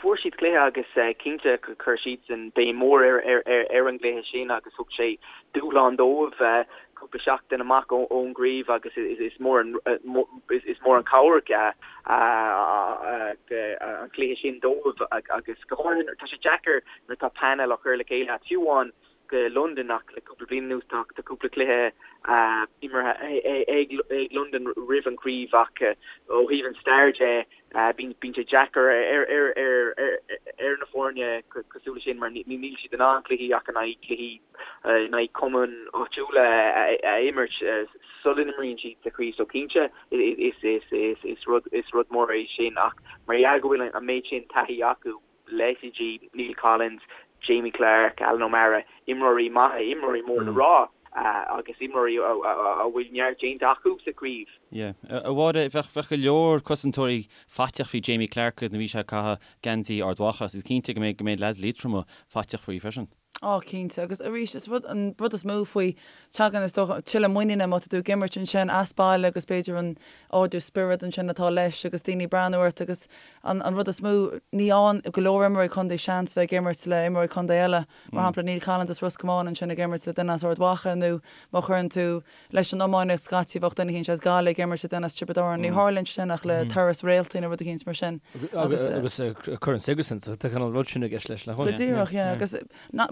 Fuair siad cluiche agus cinnte chuir siadsan béim mhór ar an gcluiche sin agus thug sé dúshlán dóibh cúpla seachtain amach ón gcraobh agus is mór an is mór an chabhair an cluiche sin dóibh agus go háirithe tá sé deacair nuair atá painéal á chur le chéile agat fiú amháin go Londain ach le cúpla bliain anuas tá cúpla cluiche imeartha ag Londain roimh an chraobh ach ó thaobh an stair de bíonn sé deacair ar na foirne cosúil leis sin mar níl siad in ann cluichí ach in aghaidh cluichí in aghaidh cumainn áitiúla a imirt sula n-imríonn siad sa chraobh so cinnte is rud is rud mór é sin ach mar gheall go bhfuil an méid sin taithí acu leithéidí Neil Collins, Jamie Clarke, Alan O'Mara, imreoirí maithe, imreoirí mór le rá agus imreoirí a bhfuil neart déanta acu sa chraobh. Yeah. A Mháire, bheadh, bheadh go leor cosantóirí faiteach faoi Jamie Clarke nuair a bhí sé ag caitheamh geansaí Ard Mhacha agus is cinnte go mbeidh, go mbeidh leaids Liatroma faiteach faoi freisin. Á, cinnte. Agus arís, is rud, an rud is mó faoi, tagann, is dócha, tuilleadh muiníne má tá tú ag imirt ansin as baile agus b'fhéidir an ardú spiorad ansin atá leis agus daoine ag breathnú ort agus an, an rud is mó, ní fhaigheann go leor imreoirí contae seans bheith ag imirt le imreoirí contae eile. Mar shampla, Neil Collins as Ros Comáin ansin ag imirt le duine as Ard Mhacha nó má chuireann tú leis an iománaíocht scaití bheadh duine eicínt as Gaillimh ag imirt le duine as Tiobraid Árann. Ní tharlaíonn sin ach le turas réaltaí nó rud eicínt mar sin. Agus Corn Sigerson, so tá an rud sin i gceist leis nach bhfuil? Go díreach, yeah. Agus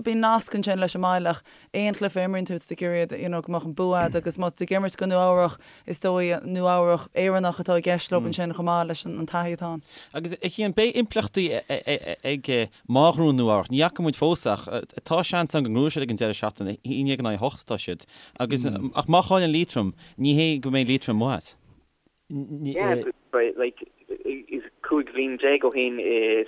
bíonn nasc ansin leis an mbaile ach aon chluiche a imríonn tú, tá tú ag iarraidh you know go mbeadh an bua agat agus má tá tú ag imirt go Nua Eabhrach, is dóigh Nua Eabhrach Éireannach atá i gceist leo ansin chomh maith leis an taithí atá ann. Agus a Chian, beidh impleachtaí ag Má ghnóthaíonn Nua Eabhrac, ní fhaca muid fós ach tá seans ann go ngnóthóidh siad ag an deireadh seachtaine, 11 in aghaidh 8 atá siad. Agus, ach má chailleann Liatroim, ní hé go mbeidh Liatroim amuigh as. Yeah, but like, is 15 bhliain ó shin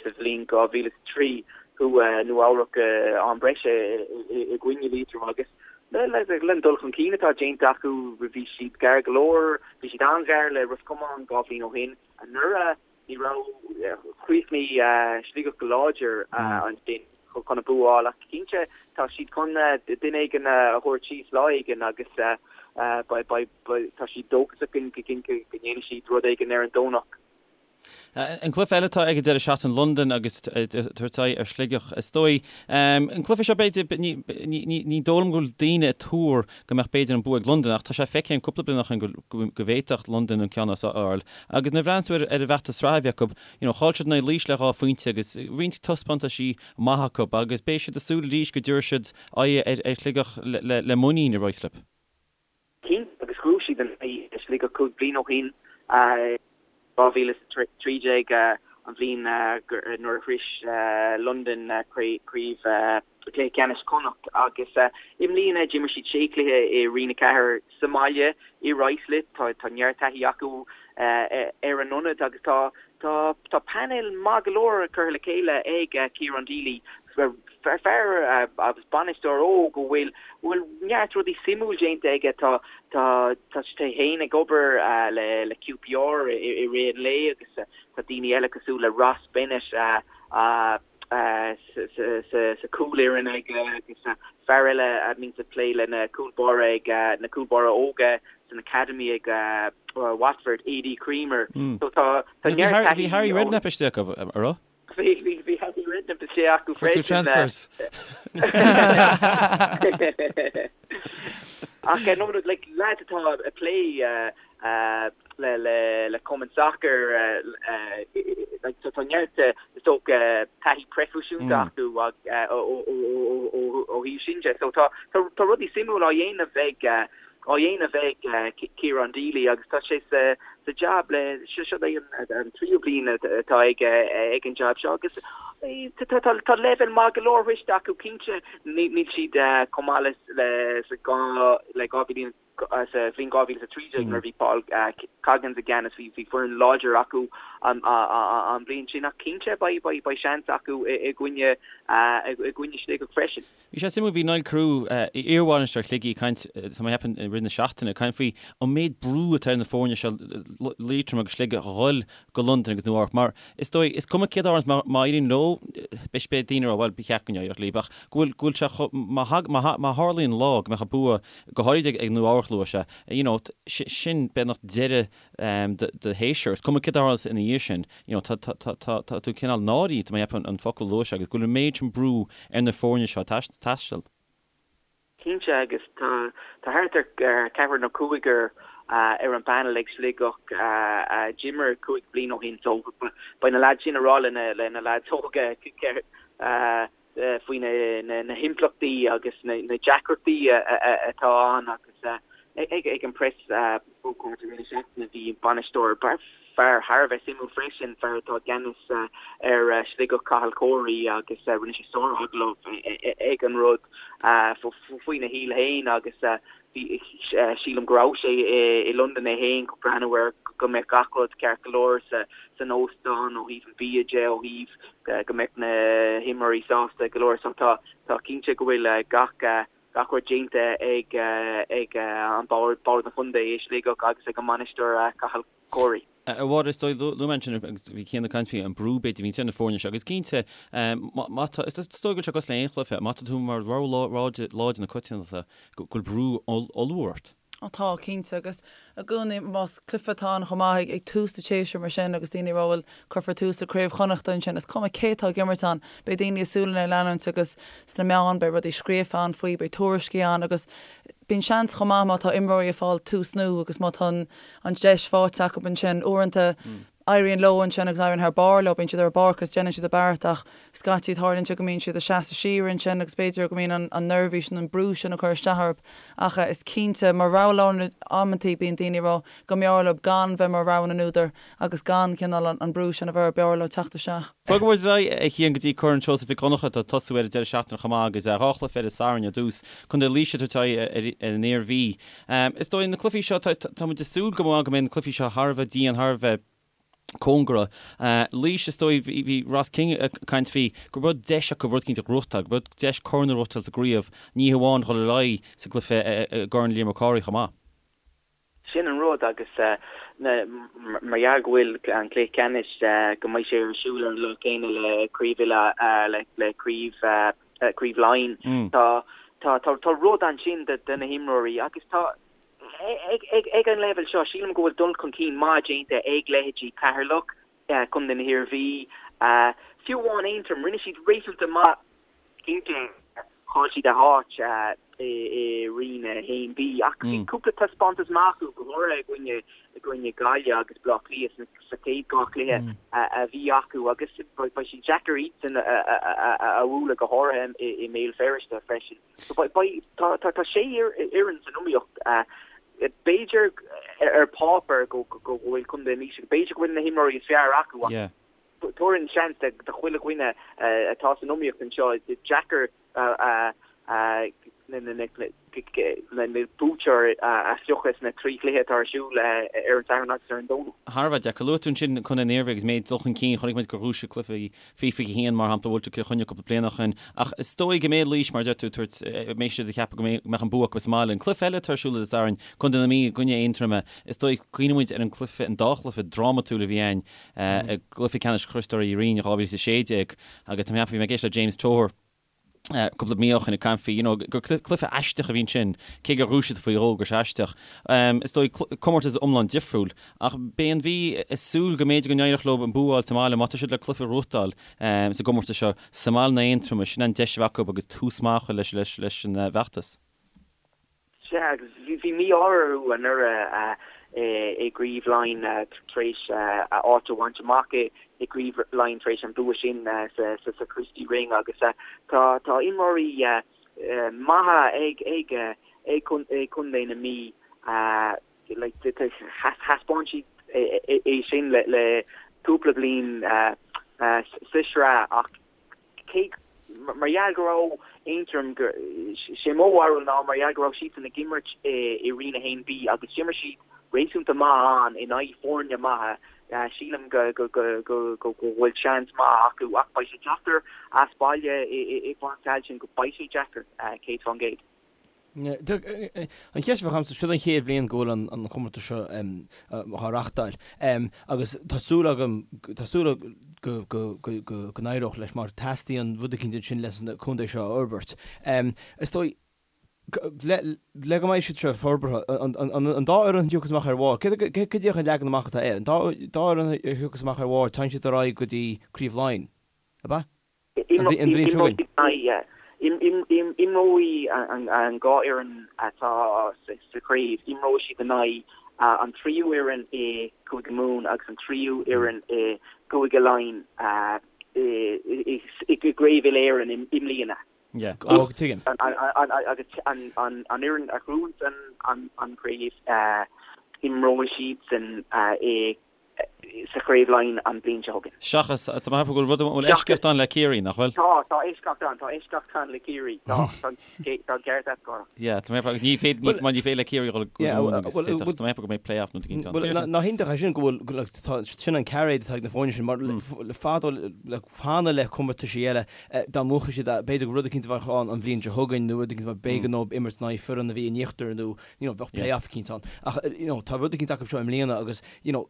sa bhliain 2003 chuaigh Nua Eabhrac go am breise i gcoinne Liatroim agus le an dul chun cinn atá déanta acu bhí siad gar go leor, bhí siad an-ghar le Ros Comáin 2 bhliain ó shin. Anuraidh Ní raibh, chríochnaigh Sligeach go láidir ansin chun an bua a fháil ach cinnte tá siad chun duine éigin a thabhairt síos lá éigin agus tá siad dóchasach go ndéanfaidh siad rud éigin ar an Domhnach. An cluiche eile atá ag an deireadh seachtaine, Londain agus tabhairt aghaidh ar Shligeach. Is dóigh, an cluiche seo b'fhéidir, ní dóigh liom go bhfuil daoine ag tuar go mbeadh b'fhéidir an bua ag Londain ach tá sé feicthe an cúpla bliain ó shin go bhféadfadh Londain an ceann a fháil. Agus nuair a bhreathnaíonn tú ar an bhfeachtas sraithe a bhí acu, you know, chaill siad in aghaidh Laois le 2 phointe agus roinnt taispeántaisí maith acu agus beidh siad ag súil arís go dtabharfaidh siad aghaidh ar Shligeach le muinín i Ruislip. Cinnte, agus ghnóthaigh siad in aghaidh Sligeach 5 bliain ó shin, 2013, an bhliain nuair a shrois Londain craobh. Cluiche Ceannais Chonnacht agus i mbliana d'imir siad sé chluiche i Roinn 4 sa mbaile i Ruislip. Tá tá neart taithí acu ar an ionad agus tá tá tá painéal maith go leor curtha le chéile ag Ciarán Deely, fear agus bainisteoir óg a bhfuil bhfuil neart rudaí suimiúil déanta aige. Tá tá tá sé féin ag obair le le QPR i rith an lae agus tá daoine eile cosúil le Ross Bennett a sa chúlfhoireann aige agus fear eile a bhíonns ag plé le na cúl báire ag na cúl báire óga san academy ag Watford, Adie Creamer. So tá tá neart taithí Bhí Harry Redknapp istigh acu, an raibh? Bhí bhí bhí Harry Redknapp istigh acu freisin. Transfers. Ach no like lads atá ag plé le cumann sacair tá neart is dócha taithí proifisiúnta acu ó thaobh sin de. So tá tá rudaí suimiúil á dhéanamh ag á dhéanamh ag Ciarán Deely agus tá sé sa sa jab le seo seo é an tríú bliain atá aige ag an jab seo agus tá tá tá leibhéal maith go leor sroichte acu cinnte níl siad chomh maith le le sa le 2000 Sa bhliain 2013 nuair a bhí Paul Coggins i gceannas bhí foireann láidir acu an bhliain sin ach cinnte beidh seans acu i gcoinne i gcoinne Sligeach freisin. Bhí sé suimiúil, bhí Niall Carew, iarbhainisteoir Shligigh, ag caint, tá mé ag ceapadh i rith na seachtaine, ag caint faoi an méid brú atá ar na foirne seo, Liatroim agus Sligeach, a dhul go Londain agus Nua Eabhrac mar is dóigh, is cuma céard a tharlaíonns, má éiríonn leo, beidh beidh daoine ag rá bhuel ba cheart go n-éireodh leo ach go bhfuil go bhfuil sé chomh, má má tharlaíonn lá go mbeadh an bua go háirid ag Nua Eabhrac luaigh sé, you know, sin beagnach deireadh do shéasúir, is cuma céard a tharlaíonns ina dhiaidh sin, you know, tá tá tá tá tá tú cineál náirithe, tá mé ag ceapadh an focal a luaigh sé agus go bhfuil an méid sin brú ar na foirne seo taisteal. Cinnte, agus tá thart ar cheathrar nó cúigear ar an bpainéal ag Sligeach a d'imir 5 bliana ó shin so beidh na leaids sin ag rá le na leaids óga faoi na himpleachtaí agus na deacrachtaí atá ann agus ag an preas ócáid i rith na seachtaine bhí bainisteoir Fear thar a bheith suimiúil freisin, fear atá i gceannas ar Shligeach, Cathal Corey, agus rinne sé sár-agallamh ag an rud faoina shaol féin agus bhí, sílim go raibh sé i Londain é féin chun breathnú ar go mbeadh gach rud ceart go leor san óstán ó thaobh an bhia de, ó thaobh go mbeadh na himreoirí sásta go leor. So tá cinnte go bhfuil gach gach rud déanta ag ag an bord, bord an chontae i Sligeach agus ag an mbainisteoir Cathal Corey. A Mháire, is dóigh, luaigh mé ansin agus bhí Cian ag caint faoi an brú b'fhéidir a bhíonn ar na foirne seo agus cinnte má tá, is dóigh go bhfuil sé cosúil le aon chluiche, má tá tú mar rogha láidir na coitiantachta go bhfuil brú ollmhór ort. Ó tá, cinnte, agus i gcónaí más cluiche atá ann chomh maith ag tús an tséasúir mar sin agus daoine ag rá bhuel cuirfear tús le Craobh Chonnachta ansin, is cuma cé atá ag imirt ann, beidh daoine a súile ag leanúint agus sna meáin beidh rudaí scríofa ann faoi, beidh tuairiscí ann agus bíonn seans chomh maith má tá imreoirí ag fáil tús nua agus má tá an deis faighte acu ansin uaireanta éiríonn leo ansin agus éiríonn thar barr leo, bíonn siad ar an bpáirc agus déanann siad a bpeart ach scaití tarlaíonn sé go mbíonn siad ag seasamh siar ansin agus b'fhéidir go mbíonn an neirbhís nó an brú sin ag cur isteach orthu ach is cinnte mar rogha láidir amantaí bíonn daoine ag rá go mb'fhearr leo gan bheith mar rogha na n-údar agus gan cineál an brú sin a bheith orthu, b'fhearr leo teacht isteach. Bogfaidh muid ar aghaidh, a Chian, go dtí Corn Seosamh Mhic Dhonncha atá ag tosú ar an deireadh seachtaine chomh maith agus dhá chluiche ar an Satharn ar dtús. Contae Laoise ag tabhairt aghaidh ar an Iarmhí. Is dóigh na cluichí seo, tá muid ag súil go maith go mbeidh na cluichí seo thar a bheith dian, thar a bheith cóngarach. Laois, is dóigh, bhí Ross King ag caint faoi go raibh deis acu rud éicint a ghnóthachtáil, go raibh deis corn a ghnóthachtáil sa gcraobh, ní hamháin dhul ar aghaidh sa gcluiche i gCorn Liam Mac Cárthaigh chomh maith. Sin an rud agus mar gheall go bhfuil an cluiche ceannais, go mbeidh sé ar siúl ar an lá céanna le craobh uile, le craobh Craobh Laighean. Tá tá tá rud ansin do na himreoirí agus tá ag ag ag an leibhéal seo sílim go bhfuil dul chun cinn maith déanta ag leithéidí Ceatharlach, Contae na hIarmhí, fiú amháin Aontroim, rinne siad réasúnta maith cinnte chaill siad a háit i Roinn 1B ach bhí cúpla taispeántas maith acu go háirithe i gcoinne i gcoinne Gaillimh agus Bleá Cliath sa chéad dhá chluiche a bhí acu agus beidh sé deacair iadsan a bhualadh go háirithe i mBéal Feirste freisin. So beidh tá sé fhoireann san iomaíocht. B'fhéidir ar páipéar go bhfuil Contae Laoise, b'fhéidir go bhfuil na himreoirí is fearr acu ach tabharfainn seans do chuile dhuine atá san iomaíocht anseo. Is deacair. Na buaiteoir a phiocadh sna 3 chluiche atá ar siúl ar an Satharn agus ar an Domhnach. Thar a bheith deacair. Luaigh tú ansin Contae na hIarmhí agus méid dul chun cinn. Chonaic muid gur bhuaigh siad cluiche faoi 21 mar shampla, bhuail siad Cill Chainnigh cúpla bliain ó shin. Ach is dóigh go mbeidh Laois, mar a deir tú, tabhairt, mbeidh siad ag ceapadh go mbeadh an bua acu sa mbaile. An cluiche eile atá ar siúl Dé Sathairn, Contae na Mí i gcoinne Aontroma, is dóigh, cuimhníonn muid ar an gcluiche, an dá chluiche drámatúil a bhí ann i gcluiche ceannais Chriostóir Uí Rinn in 2016 agus tá mé ag ceapadh, bhí mé ag éisteacht le James Toher, cúpla mí ó shin ag caint faoi, you know, gur cluiche aisteach a bhí ansin, cé gur bhuaigh siad faoi dhó, gur sé aisteach. Is dóigh comórtas iomlán difriúil, ach beidh an Mhí ag súil go mb'fhéidir go n-éireodh leo an bua a fháil sa mbaile, má tá siad le cluiche a ghnóthachtáil sa gcomórtas seo sa mbaile in aghaidh Aontroma, sin an deis a bheadh acu agus tús maith a chur leis leis an bhfeachtas. Sea, agus bhí mí-ádh orthu anuraidh i gCraobh Laighean tar éis a áit a bhaint amach i gCraobh Laighean tar éis an bua sin sa Christy Ring agus tá tá imreoirí maithe ag ag ag Contae na Mí thaispeáin siad é sin le cúpla bliain sa sraith ach cé mar gheall go raibh Aontroim, sé mo bharúil ná mar gheall go raibh siadsan ag imirt i Roinn 1B agus d'imir siad réasúnta maith ann in aghaidh foirne maithe, sílim go go bhfuil seans maith acu ach beidh sé deacair as baile i bPáirc Tailteann, beidh sé deacair, 100%. An cheist a bheadh agamsa, seo an chéad bhliain go bhfuil an comórtas seo á reachtáil agus tá súil agam, tá súil go n-éireodh leis mar teastaíonn rud eicínt ansin leis na contae seo a fhorbairt. Is dóigh, le go mbeidh siad seo forbartha, an dá fhoireann a thiocfas amach ar bharr, cad é an leagan amach atá air? An dá fhoireann a thiocfas amach ar bharr, téann siad ar aghaidh go dtí Craobh Laighean, ab ea? An bhliain seo chugainn. Imreoidh an dhá fhoireann atá sa chraobh, imreoidh siad in aghaidh an tríú fhoireann i gCúige Mumhan agus an tríú fhoireann i gCúige Laighean i gCraobh Uile-Éireann i mbliana. Tuigim. Agus an fhoireann a ghnóthaíonn an chraobh, imreoidh siadsan i sa Chraobh Laighean an bhliain seo chugainn. Seachas, tá mé ag ceapadh go bhfuil rud, bhfuil eisceacht ann le Ciarraí, nach bhfuil? Tá, tá eisceacht ann, tá eisceacht ann le Ciarraí, tá, tá, tá an ceart agat, Cárthach. Yeah, tá mé ag ceapadh, ní féidir, ní, mar ní féidir le Ciarraí dhul go Mumhan agus tá, tá mé ag ceapadh go mbeidh play-off nó rud éicint ann. Bhuel, nach iontach é sin go bhfuil, like, tá, sin an cairéad atá ag na foirne sin, mar le fadó, le cheana le comórtaisí eile, dá mbuafadh siad, b'fhéidir go rud eicínt a bheadh ann an bhliain seo chugainn nó rud eicínt mar b'éigean dóibh imirt in aghaidh foireann a bhí in íochtar nó, you know, bheadh play-off eicínt ann. Ach, you know, tá rud eicínt acu seo i mbliana agus, you know,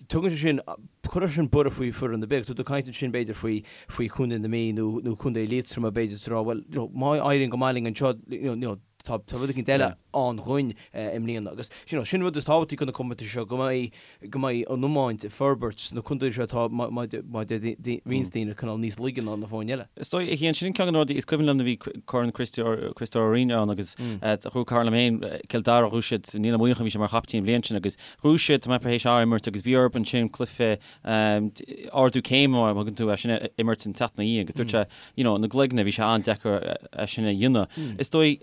tugann sé sin, cuireann sin borradh faoi foireann ar bith. Tá tú ag caint ansin b'fhéidir faoi, faoi Chontae na Mí nó, nó Contae Liatroma b'fhéidir is rá, bhuel, you know, má éiríonn go maith linn anseo, you know, tá, tá rud eicínt eile ann dhúinn i mbliana. Agus, you know, sin rud is tábhachtaí do na comórtais seo, go mbeidh, go mbeidh an iomáint ag forbairt sna contaetha seo atá, mar a deir roinnt daoine, cineál níos laige ná na foirne eile. Is dóigh, a Chian, sin ceann de na rudaí, is cuimhin liom nuair a bhí Corn Chriostóir Uí Rinn ann agus ghnóthaigh cara liom féin, Cill Dara, ghnóthaigh siad, Niall Ó Muíneacháin, bhí sé mar chaiptín an bhliain sin agus ghnóthaigh siad, tá mé tar éis imirt agus bhí orthu ansin cluiche ardú céime mar a thugann tú é sin a imirt an tseachtain ina dhiaidh agus dúirt sé, you know, na gcloigne, bhí sé an-deacair é sin a dhéanamh. Is dóigh,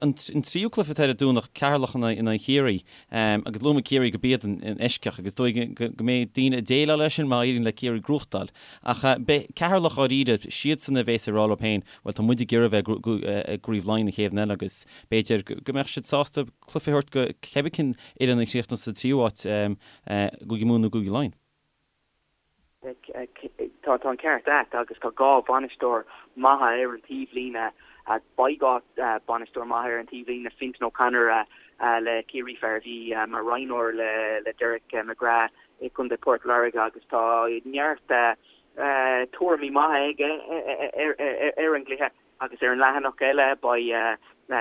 an tríú cluiche atá ar an Domhnach, Ceatharlach in aghaidh Chiarraí, agus luaigh mé Ciarraí gurb iad an eisceacht agus is dóigh go mbeidh daoine ag déileáil leis sin má éiríonn le Ciarraí gnóthachtáil. Ach beidh Ceatharlach dháiríre, siadsan a bhéas ag rá leo féin, bhuel tá muid ag iarraidh a bheith i gCraobh Laighean an chéad bhliain eile agus b'fhéidir go mbeadh siad sásta cluiche a thabhairt go cibé cén fhoireann a chríochnaíos sa tríú háit, Cúige Mumhan nó Cúige Laighean. Tá an ceart agat agus tá dhá bhainisteoir maithe ar an taobhlíne. Beidh dhá bhainisteoir maithe ar an taobhlíne, Fintan O'Connor le Ciarraí, fear a bhí mar roghnóir le Derek McGrath i gContae Port Láirge agus tá neart tuairimí maithe aige ar an gcluiche. Agus ar an leathanach eile beidh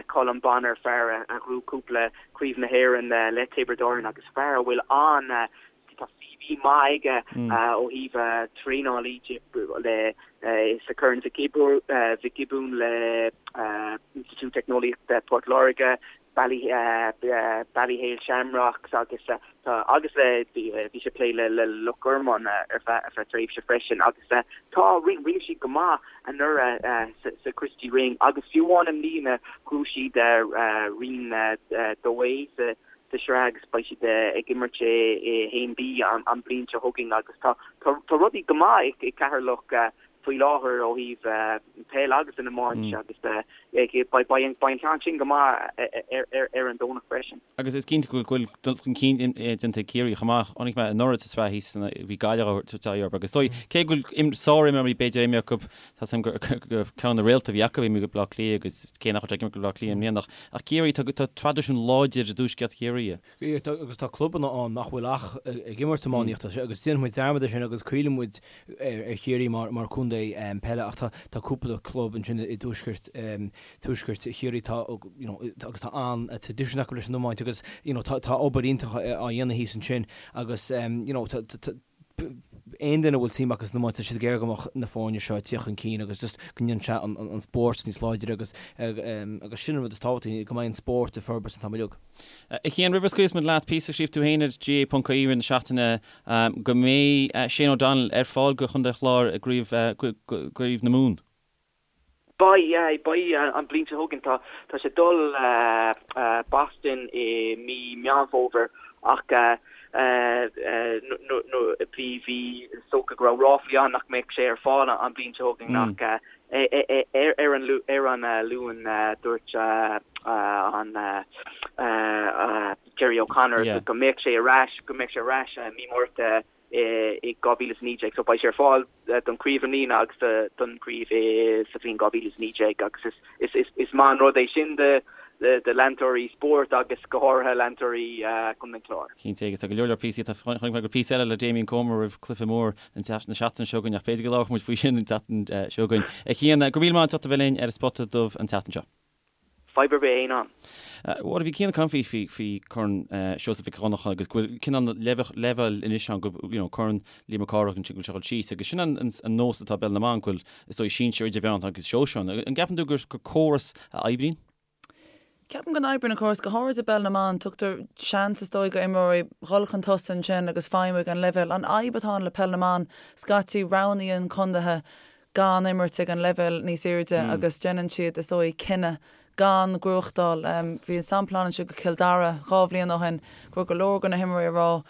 Colm Bonnar, fear a ghnóthaigh cúpla Craobh na hÉireann le Tiobraid Árann agus fear a bhfuil an, tá CV maith aige ó thaobh traenálaí de le sa Chorn Mhic Giobúin le Institiúid Teicneolaíochta Port Láirge, Ballyhale Shamrocks agus tá agus le bhí sé ag plé le Loch Garman ar feadh tréimhse freisin agus tá rinne siad go maith anuraidh sa Christy Ring agus fiú amháin i mbliana ghnóthaigh siad Roinn 2A sa sraith agus beidh siad ag imirt i 1B an bhliain seo chugainn agus tá rudaí go maith i gCeatharlach. faoi láthair ó thaobh peil agus an iomáint agus beidh an ceann sin go maith ar an Domhnach freisin. Agus is cinnte go bhfuil dul chun cinn déanta ag Ciarraí chomh maith. Chonaic mé anuraidh sa tsraith thíos bhí Gaillimh á tabhairt aghaidh orthu agus is dóigh, cé go bhfuil sár-imreoirí b'fhéidir imithe acu, tá 's agam gur ceann de na réalta a bhí acu imithe go Baile Átha Cliath agus cé nach bhfuil sé ag imirt do Bhaile Átha Cliath i mbliana ach Ciarraí, tá traidisiún láidir i dtuaisceart Chiarraí. Agus tá clubanna ann nach bhfuil ach ag imirt iománaíochta agus déanann muid dearmad de sin agus caoileann muid ar Chiarraí mar chontae peile ach tá cúpla club ansin i dtuaisceart tuaisceart Chiarraí tá you know agus tá an-traidisiún acu leis an iomáint agus you know tá tá obair iontach á dhéanamh thíos ansin agus you know tá tá aon duine a bhfuil suim acu san iomáint tá siad ag iarraidh go mbeadh na foirne seo ag tíocht chun cinn agus just go ndéanann sé an an spórt níos láidre agus agus sin an rud is tábhachtaí go mbeidh an spórt ag forbairt an t-am uilig. A Chian, roimh a scaoilfeas muid leat, píosa a scríobh tú féin ar GAA.ie i rith na seachtaine go mbeidh Shane O'Donnell ar fáil do Chontae an Chláir i gcraobh gCraobh na Mumhan. Beidh, yeah, beidh an bhliain seo chugainn. Tá, tá sé ag dul Boston i mí Meán Fómhair ach bhí, bhí, is dócha go raibh ráflaí ann nach mbeadh sé ar fáil an bhliain seo chugainn ach ar an, ar an Luan dúirt an Gerry O'Connor go mbeadh sé ar ais, go mbeadh sé ar ais mí Márta i 2019 so beidh sé ar fáil don chraobh i mbliana agus don chraobh sa bhliain 2019 agus is maith an rud é sin do leantóirí spóirt agus go háirithe leantóirí Chontae an Chláir. Cinnte agus tá go leor leor píosaí, tá chonaic mé go raibh píosa eile le Damien Comer roimh cluiche mór na seachtaine seo chugainn ach b'fhéidir go labharfaidh muid faoi sin an tseachtain seo chugainn. A Chian, go raibh míle maith agat as ucht a bheith linn ar an Spota Dubh an tseachtain seo. Fadhb ar bith aon am. Bhuel, bhí Cian ag caint faoi faoi faoi Corn Seosamh Mhic Dhonncha agus go bhfuil cineál leibhéal anois ann go you know Corn Liam Mac Cárthaigh ansin go bhfuil sé ag dul síos agus sin an an nós atá i bpeil na mban go bhfuil is dóigh sinsir idirmheánach agus sóisear ann. An gceapann tú gur gur córas a oibríonn? Ceapaim go n-oibríonn an córas, go háirid i bpeil na mban, tugtar seans is dóigh go imreoirí dhul chun tosaigh ansin agus feidhmiú ag an leibhéal. An fhadhb atá ann le peil na mban, scaití roghnaíonn contaetha gan imirt ag an leibhéal níos airde agus déanann siad, is dóigh, cinneadh gan gnóthachtáil. Bhí an sampla ann anseo go Cill Dara 2 bhliain ó shin go raibh go leor de na himreoirí ag rá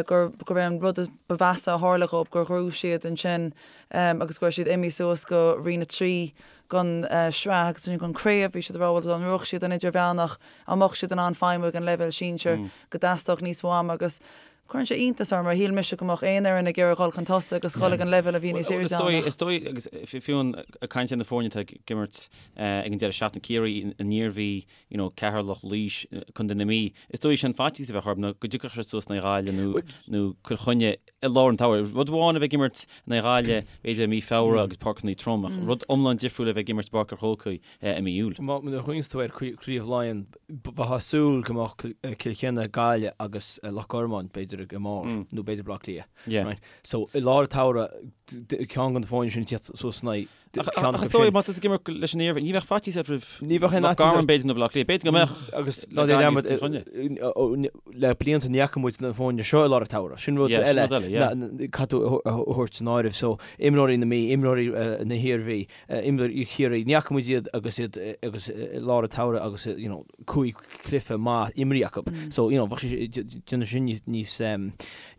gur gurb é an rud ba mheasa a tharla dhóibh gur ghnóthaigh siad ansin agus go raibh siad imithe suas go Roinn 3 den sraith agus ansin den craobh. Bhí siad ag rá bhuel dá ngnóthódh siad an idirmheánach an mbeadh siad in ann feidhmiú ag an leibhéal sinsir go dteastódh níos mó ama agus Cuireann sé iontas orm mar shíl mise go mbeadh aon fhoireann ag iarraidh dhul chun tosaigh agus dhul ag an leibhéal a bhí níos airde ann ach. Is dóigh, agus fiú ag caint ar na foirne atá ag imirt ag an deireadh seachtaine, Ciarraí, an Iarmhí, you know, Ceatharlach, Laois, Contae na Mí, is dóigh sé an faitíos a bheadh orthu ná go dtiocfadh siad suas in aghaidh Ghaillimh nó nó Cill Chainnigh i lár an tsamhraidh. Rud amháin a bheith ag imirt in aghaidh Ghaillimh b'fhéidir i mí Feabhra agus páirceanna trom ach rud iomlán difriúil a bheith ag imirt i bPáirc an Chrócaigh i mí Iúil. Nuair a chuimhníonns tú ar Chraobh Laighean, bheifeá ag súil go mbeadh Cill Chainnigh, Gaillimh agus Loch Garman, b'fhéidir, ag an mbarr, nó b'fhéidir Baile Átha Cliath. Right? So, i lár an tsamhraidh, ceann de na foirne sin ag tíocht suas in aghaidh ceann acu sin. Ach is dóigh, má tá tú ag imirt leis an Iarmhí, ní bheadh faitíos ort roimh Loch Garman, b'fhéidir, nó Baile Átha Cliath. B'fhéidir go mbeadh Agus ná déan dearmad, le blianta ní fhaca muid na foirne seo i lár an tsamhraidh. Sin rud eile caithfidh tú a thabhairt san áireamh. So, imreoirí na Mí, imreoirí na hIarmhí, Imreoirí Chiarraí, ní fhaca muid iad agus iad agus i lár an tsamhraidh agus you know cúig cluiche maith imrithe acu. So you know bheadh sé déanamh sin níos níos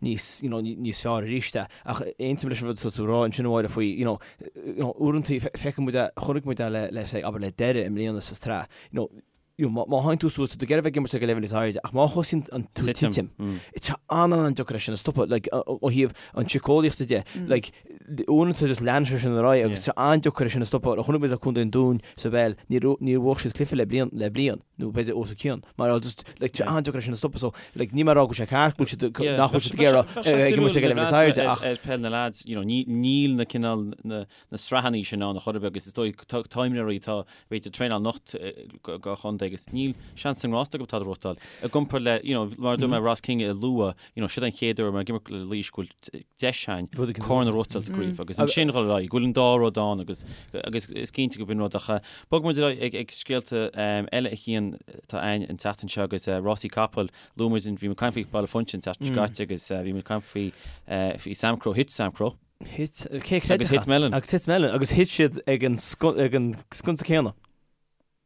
níos you know níos fearr arís é. Ach aontaím leis an rud atá tú a rá ansin a Mháire faoi you know you know uaireanta feiceann muid é chonaic muid é le le say abair le Doire i mbliana sa tsraith you know you know, má théann tú suas, tá tú ag iarraidh a bheith ag imirt ag an leibhéal níos airde, ach má thosaíonn an tú titim, tá sé an-an-deacair é sin a stopadh, like, ó thaobh an tsíceolaíochta de, like, uaireanta just leanann sé sin ar aghaidh agus tá sé an-deacair é sin a stopadh. Chonaic muid le Contae an Dúin sa bpeil, níor níor bhuaigh siad cluiche le bliain, le bliain, nó b'fhéidir os a cionn, mar just, like, tá sé an-deacair é sin a stopadh, so, like, níl mé ag rá go bhfuil sé ceart go bhfuil siad, nach bhfuil siad ag iarraidh ag imirt ag an leibhéal níos airde, ach. Ar peil na lads, you know, níl na cineál na na sraitheanna sin ann a chor ar bith agus is dóigh tá imreoirí atá b'fhéidir ag traenáil anocht do chontae agus níl seans sa ngrást acu tada a ghnóthachtáil. I gcomparáid le, you know, mar a dúirt mé Ross King a lua, you know, siod an chéad uair mar ag imirt le Laois go bhfuil deis againn corn a ghnóthachtáil sa gcraobh agus ansin dhul ar aghaidh, go bhfuil an dá rud ann agus agus is cinnte go b'in rud ach bogfaidh muid ar aghaidh ag ag scéalta eile a Chian atá againn an tseachtain seo agus rásaí capall luaigh muid bhí muid ag caint faoi Baile Phúinse an tseachtain seo caite agus bhí muid ag caint faoi faoi Samcro, thit Samcro. Thit, cé a chreidfeadh? Agus thit Melon. Agus thit Melon. Agus thit siad ag an ag an sconsa céanna.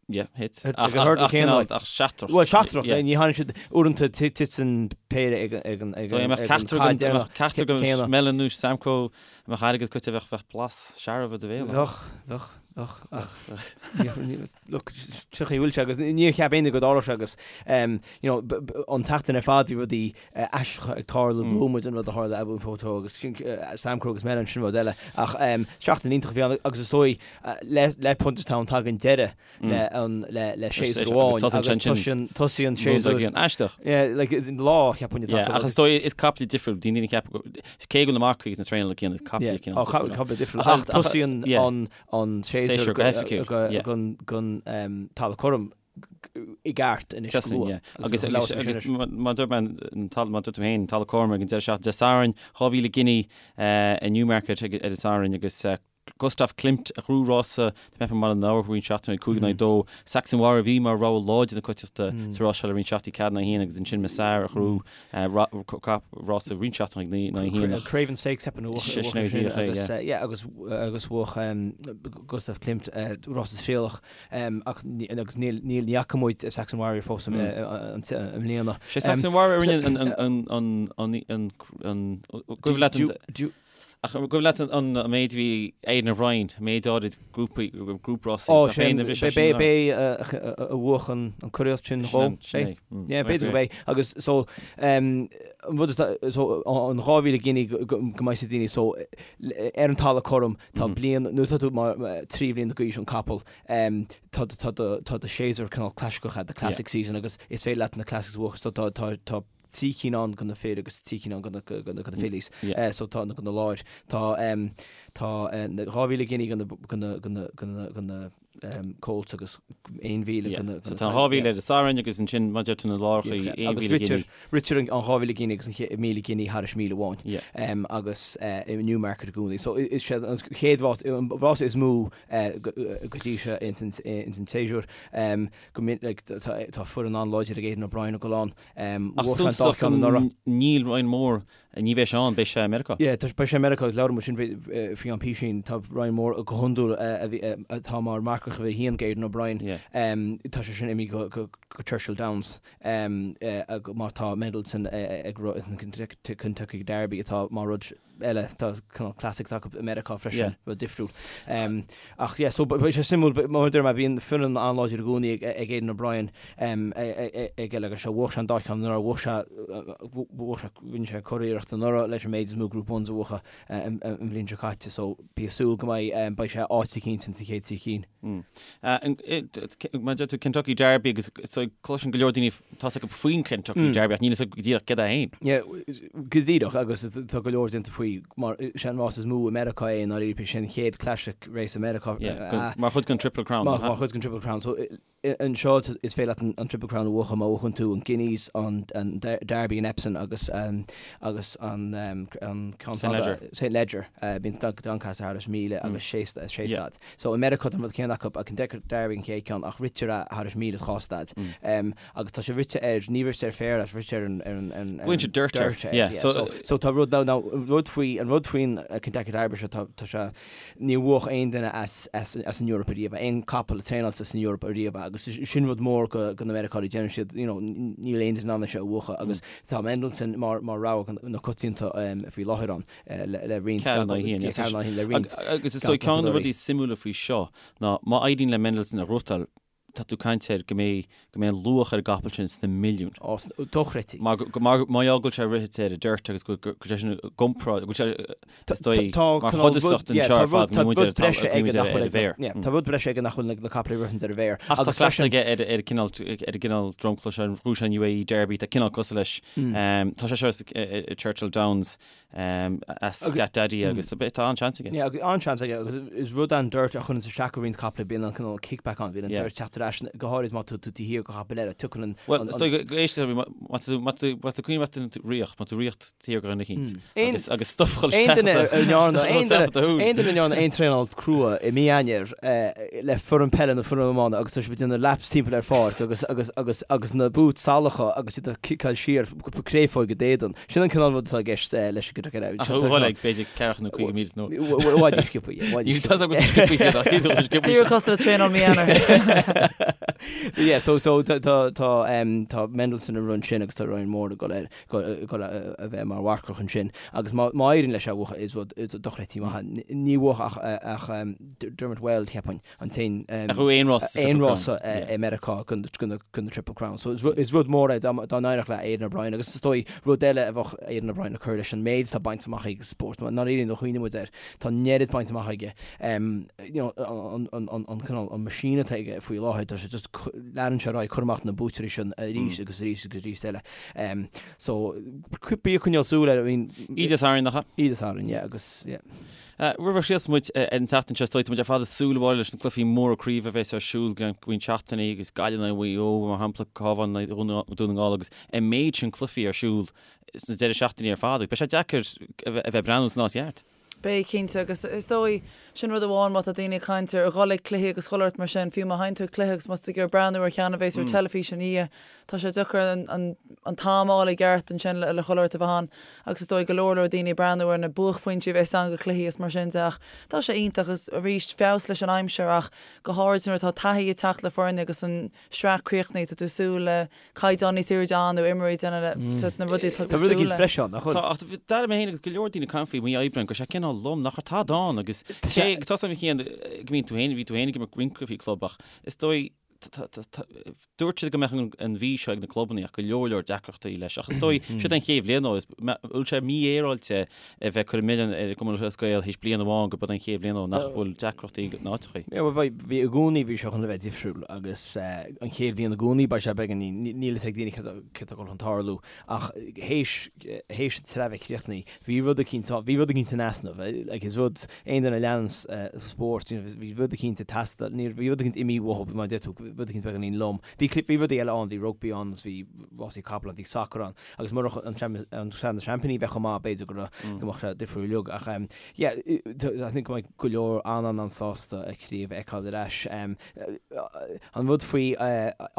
Yeah, thit. Ag an hurdle céanna, like. Ach seachtrach. Bhuel, seachtrach, ní tháinig siad uaireanta titeann péire ag an So, mbeadh ceachtar caid deireanach ceachtar go céanna. Melon nó Samcro, mbeadh airgead caite bheadh bheadh blas searbh i do bhéal. Bheadh, bheadh, bheadh, ach look, seo chaoi a bhfuil sé agus níor cheap éinne go dtarlódh sé agus you know, an tseachtain ar fad bhí rudaí aisteacha ag tarlú, luaigh muid an rud a tharla Abu Photo agus Samcro agus Melon sin rud eile ach seachtain iontach a bhí ann agus is dóigh le Punchestown tagann deireadh le an le le séasúr amháin agus tosaíonn tosaíonn séasúr aisteach. Yeah, like is lá cheapfainn atá acu. Ach is dóigh is caiple difriúil daoine ag ceapadh cé go bhfuil na marcaigh agus na traenálaithe céanna is caiple cineál difriúil. Caiple difriúil ach tosaíonn an an séasúr go hoifigiúil don talamh cothrom i gceart anois go luath. Agus agus mar a dúirt mé an talamh mar a dúirt tú féin talamh cothrom ag an deireadh seachtaine Dé Sathairn 2000 giní i Newmarket ar an Satharn agus Gustav Klimt a ghnóthaigh rása tá mé ag ceapadh i mBaile na hAbha roinnt seachtainí 5 in aghaidh 2. Saxon Warrior a bhí mar rogha láidir na coitiantachta sa rás seo le roinnt seachtainí 4 in aghaidh 1 agus ansin Masar a ghnóthaigh rása roinnt seachtainí 9 in aghaidh 1. Craven Stakes ceapaim a bhuaigh sin agus yeah agus agus bhuaigh Gustav Klimt rása trialach ach agus níl níl ní fhaca muid Saxon Warrior fós i mbliana. Sé Saxon Warrior a rinne an an an an an an an leat an Ach cuimhin leat an méid a bhí Aidan O'Brien, an méid áirid grúpaí, grúprásaí, Ó, sin, b'é a bhuaigh an curaíocht sin dhó. Sin é. Yeah, b'fhéidir gurb é. Agus so, an rud is, so, an 2,000 giní go mbeidh daoine, so, ar an talamh cothrom, tá bliain, nuair atá tú mar 3 bhliain d'aois an capall, tá tá do séasúr cineál clasaiceach, the classic season, agus is féidir leat na classics a bhuachan, so tá, tá, tá, 3 cinn ann do na fir agus 3 cinn ann do na fillies. So tá na do na láir. Tá tá 2,000 giní do na do na do na do na colts agus 1,000 do na So tá 2,000 ar an Satharn agus ansin mar a deir tú na lárachaí 1,000 giní. Ritear an 2,000 giní agus an 1,000 giní thairis míle amháin agus i Newmarket i gcónaí. So is sé an chéad rás an rás is mó go dtí seo ins an séasúr. Go minic tá foireann an-láidir ag Aidan O'Brien ag dul ann. Ach suntasach níl Ryan Moore, ní bheidh sé ann, beidh sé i Meiriceá. Yeah, beidh sé i Meiriceá agus labhair muid sin faoi am písín, tá Ryan Moore go hiondúil atá mar marcach uimhir a haon ag Aidan O'Brien, tá sé sin imithe go Churchill Downs mar tá Mendelssohn ag rith an Kentucky Derby atá mar rud eile, tá cineál classics acu i Meiriceá freisin, rud difriúil. Ach yeah, so beidh sé suimiúil, mar a deir mé, bíonn foireann an-láidir i gcónaí ag Aidan O'Brien ag eile agus seo, bhuaigh sé an dá cheann anuraidh, bhuaigh sé, bhuaigh sé, rinne sé curiarracht anuraidh leis an méid is mó Group Ones a bhuachan an bhliain seo caite, so bí ag súil go mbeidh, beidh sé áit eicínt ins an chéad trí cinn. Mar a deir tú Kentucky Derby agus so cloiseann go leor daoine tá a fhios acu faoin Kentucky Derby ach níl a fhios acu go díreach céard é féin. Yeah, go díreach agus tá go leor déanta faoi mar sé an rás is mó i Meiriceá é i ndáiríre, sé an chéad classic race i Meiriceá. Yeah, mar chuid den Triple Crown. Mar chuid den Triple Crown. So Anseo is féidir leat an Triple Crown a bhuachan má bhuachann tú an Guineas, an Derby in Epsom agus agus an ceann fada St Leger. Bíonn Doncaster thairis 1,000 agus sé staid. So i Meiriceá tá an rud céanna acu, Kentucky Derby an chéad ceann ach ritear é thairis 1,000 is 2 staid. Agus tá sé rite ar, ní rite ar féar, rite ar an Glaonn siad dirt air. So tá rud, now rud faoi, an rud faoin Kentucky Derby seo tá sé, Níor bhuach aon duine as an Eoraip ariamh, aon capall a traenáilte san Eoraip ariamh agus sin rud mór go na Meiriceánaigh, deireann siad you know níl aon duine in ann é seo a bhuachan agus tá Mendelssohn mar mar rogha na coitianta faoi láthair ann le roinnt le roinnt Agus is dóigh ceann de na rudaí suimiúla faoi seo ná má éiríonn le Mendelssohn a ghnóthachtáil tá tú ag caint ar go mbeidh, go mbeidh an luach ar an gcapall sin sna milliúin. Ó, dochreidte. Mar, mar, mar gheall go bhfuil sé rite ar an dirt agus go, go, go bhfuil sé sin i gcomparáid, go bhfuil sé, is dóigh, mar chuid den seo ar fad, go bhfuil muid ar an, go bhfuil muid ar an bhféar. Yeah, tá rud breise aige nach bhfuil na capaill a ritheann ar an bhféar. Ach tá cleachtadh aige ar, ar an gcineál, ar an gcineál dromchla seo, ghnóthaigh sé an UAE Derby, tá cineál cosúil leis. Tá sé seo i Churchill Downs. As Scat Daddy agus tá an-seans aige. Yeah, an-seans aige agus is rud an dirt a chuireann isteach ar roinnt capaill bíonn an cineál kickback ann, bíonn an dirt teacht ar ais go háirid má tá tú taobh thiar de chapall eile, tiocfaidh an. Bhuel, is dóigh go éist má tá má tá má tá cuimhin leat riocht, má tá riocht thiar de dhuine eicínt agus agus stuff a chur isteach aon duine a ndearna aon traenáil crua i mí Eanáir le foireann peile nó foireann iomána agus tá siad ag déanamh laps timpeall ar pháirc agus agus agus agus na boots salacha agus iad ag ciceáil siar créafóig i d'éadan. Sin an cineál rud atá i gceist leis an gcuid eile. Ach bhuel ag b'fhéidir ceathracha nó 50 míle nó. I bhfad níos sciobtha, yeah, i bhfad níos sciobtha. Tá a fhios agam go sciobtha iad, ach ní dóigh sciobtha. Díreach cosúil le traenáil mí Eanáir. Yeah, so so tá tá tá um, tá Mendelson ag run sin agus tá Ryan Moore ag dul ar dul a bheith mar mharcach ansin agus má má éiríonn leis é a bhuachan is rud is dochreidte maith ní bhuach ach ach um, Dermot Weld cheapfainn an t-aon um, Ach aon rás sa aon rás i Meiriceá don don don Triple Crown. So is is rud mór é dá dá n-éireodh le Aidan O'Brien agus is dóigh rud eile a bheadh Aidan O'Brien ag cur leis an méid atá bainte amach aige sa spórt. Ná ní do chuimhne muid air tá an oiread bainte amach aige. Um, you know, an, an, an, an, cineál, an machine atá aige faoi láthair, tá sé just leanann sé ar aghaidh cur amach na buaiteoirí sin arís agus arís agus arís eile. Um, so, bí ag coinneáil súil air, I mean, Oíche Sathairn, nach ea? Oíche Sathairn, yeah, agus, yeah. Uh, roimh a chríochnós muid uh, ar an tseachtain seo, is dóigh, tá muid ar fad ag súil a Mháire leis na cluichí móra craoibhe a bheas ar siúl go roinnt seachtainí agus Gaillimh in aghaidh Mhaigh Eo, mar shampla, Cabhán in aghaidh Dhún na nGall agus an méid sin cluichí ar siúl sna deireadh seachtainí ar fad. Beidh sé deacair a bheith ag breathnú san áit cheart. Beidh, cinnte, agus is dóigh, sin rud amháin má tá daoine ag caint ar dhul ag cluichí agus chuile shórt mar sin, fiú má théann tú ag cluiche agus má tá tú ag iarraidh breathnú ar cheann a bhéas ar teilifís ina dhiaidh, tá sé deacair an an t-am a fháil i gceart ansin le le chuile shórt a bheith ann agus is dóigh go leor leor daoine ag breathnú ar na buaicphointí a bhéas ann go cluichí is mar sin de ach tá sé iontach agus arís feabhas leis an aimsir ach go háirid nuair atá taithí ag teacht le foirne agus an sraith críochnaithe, tá tú ag súil le caighdeán níos airde ann nó imreoirí ag déanamh na rudaí atá tú ag súil le. breise ann, nach bhfuil? Tá, ach d'airigh mé féin agus go leor daoine ag caint faoi mí Aibreáin go raibh sé cineál lom, nach raibh tada ann agus cé go tá a fhios agam go mbíonn tú féin, bhí tú féin ag imirt roinnt cluichí club ach is dóigh dúirt siad go mbeadh an mhí seo ag na clubanna ach go leor leor deacrachtaí leis ach is dóigh siod an chéad bhliain ó is bhfuil sé mífhéaráilte a bheith ag cur an milleán ar an gCumann Lúthchleas Gael théis bliain amháin gurb í an chéad bhliain ó nach bhfuil deacrachtaí ná áiteachaí. Yeah, well, beidh, bhí i gcónaí, bhí sé chun a bheith difriúil agus an chéad bhliain i gcónaí beidh sé beagáinín, níl fhios ag daoine céard atá ag dul chun tarlú ach théis, théis an tsraith bheith críochnaithe, bhí rud eicínt, bhí rud eicínt in easnamh, like is rud, aon duine a leananns spórt, you know, bhí rud eicínt ag teastáil, ní, bhí rud eicínt imithe uathu, mar a deir tú, rud eicínt beagáinín lom. Bhí, bhí rudaí eile ann, bhí rugbaí ann agus bhí rásaí capall ann, bhí sacar ann. Agus murach an Sraith na Seaimpíní bheith chomh maith, b'fhéidir go raibh, go mbeadh sé difriúil uilig. Ach yeah, I think go mbeidh go leor an-an-an-sásta an chraobh a fheiceáil ar ais. An rud faoi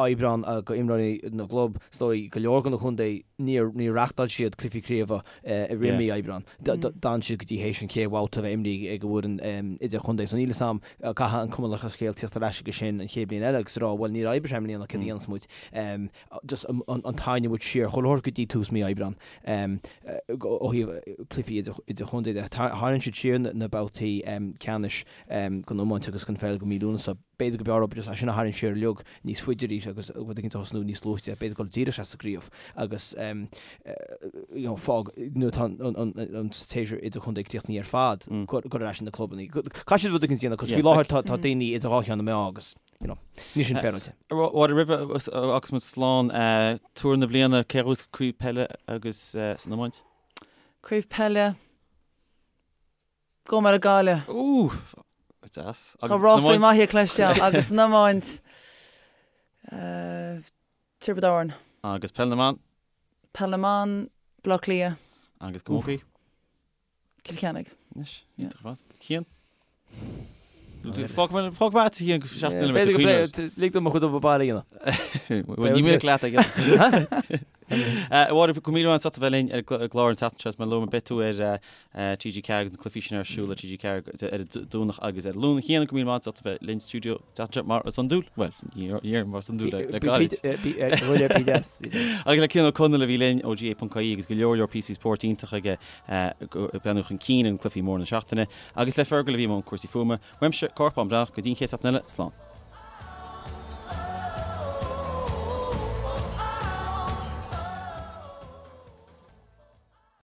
Aibreán go imreoirí na gclub, is dóigh go leor de na contae, níor níor reachtáil siad cluichí craoibhe i rith mí Aibreán. D'fhan siad go dtí théis an chéad bhabhta a bheith imrithe ag an bhfoireann idirchontae. So níl fhios a'm, caithfidh an Cumann Lúthchleas Gael tíocht ar ais aige sin an chéad bhliain eile agus a rá, bhuel níor oibrigh sé i mbliana, céard a dhéanfas muid? just an tarraingt muid siar chuile shórt go dtí tús mí Aibreán ó thaobh cluichí idirchontae de. Tharraing siad siar na babhtaí ceannais den iomáint agus den pheil go mí Lúnasa. B'fhéidir go mb'fhearr just é sin a tharraingt siar uilig níos faide arís agus rud éicint a thosnú níos luaite, b'fhéidir dul díreach isteach sa gcraobh agus you know fág nuair atá an séasúr idirchontae críochnaithe ar fad, cur ar ais na clubanna. Caithfidh siad rud éicint a dhéanamh cos faoi láthair tá daoine idir dhá cheann na meá agus you know, níl sin féaráilte. Mháire, roimh a fhágfas muid slán, tuar na bliana, cé a bhuafas craobh peile agus san iomáint? Craobh peile, gabhfaidh mé le Gaillimh. Ooh, deas. Tá ráflaí maithe cloiste agam agus san iomáint, Tiobraid Árann. Agus peil na mban? Peil na mban, Baile Átha Cliath. Agus camógaí? Cill Chainnigh. Anois, iontach ar fad. Cian? Fág mé agat a Chian go seachtain eile B'fhéidir go b'fhéidir lig dom mo chuid obair baile a dhéanamh. Bhuel, ní minic leat ag A Mháire, go raibh míle maith agat as ucht a bheith linn ar an gclár an tseachtain seo. Is mar a luaigh mé beidh tú ar TG4 agus na cluichí sin ar siúl ar TG4 ar an Domhnach agus ar an Luan. A Chian, go raibh míle maith agat as ucht a bheith linn sa stiúideo an tseachtain seo mar is iondúil. Bhuel, ní déarfainn mar is iondúil le gairid. Agus le Cian Ó Conaill a bhí linn ó GAA.ie agus go leor leor píosaí spóirt iontach aige ag breathnú chun cinn ar na cluichí móra na seachtaine, agus le Fergal a bhí i mbun cúrsaí fuaime. Uaimse, Cárthach Bán Breathnach, go dtí an chéad seachtain eile, slán.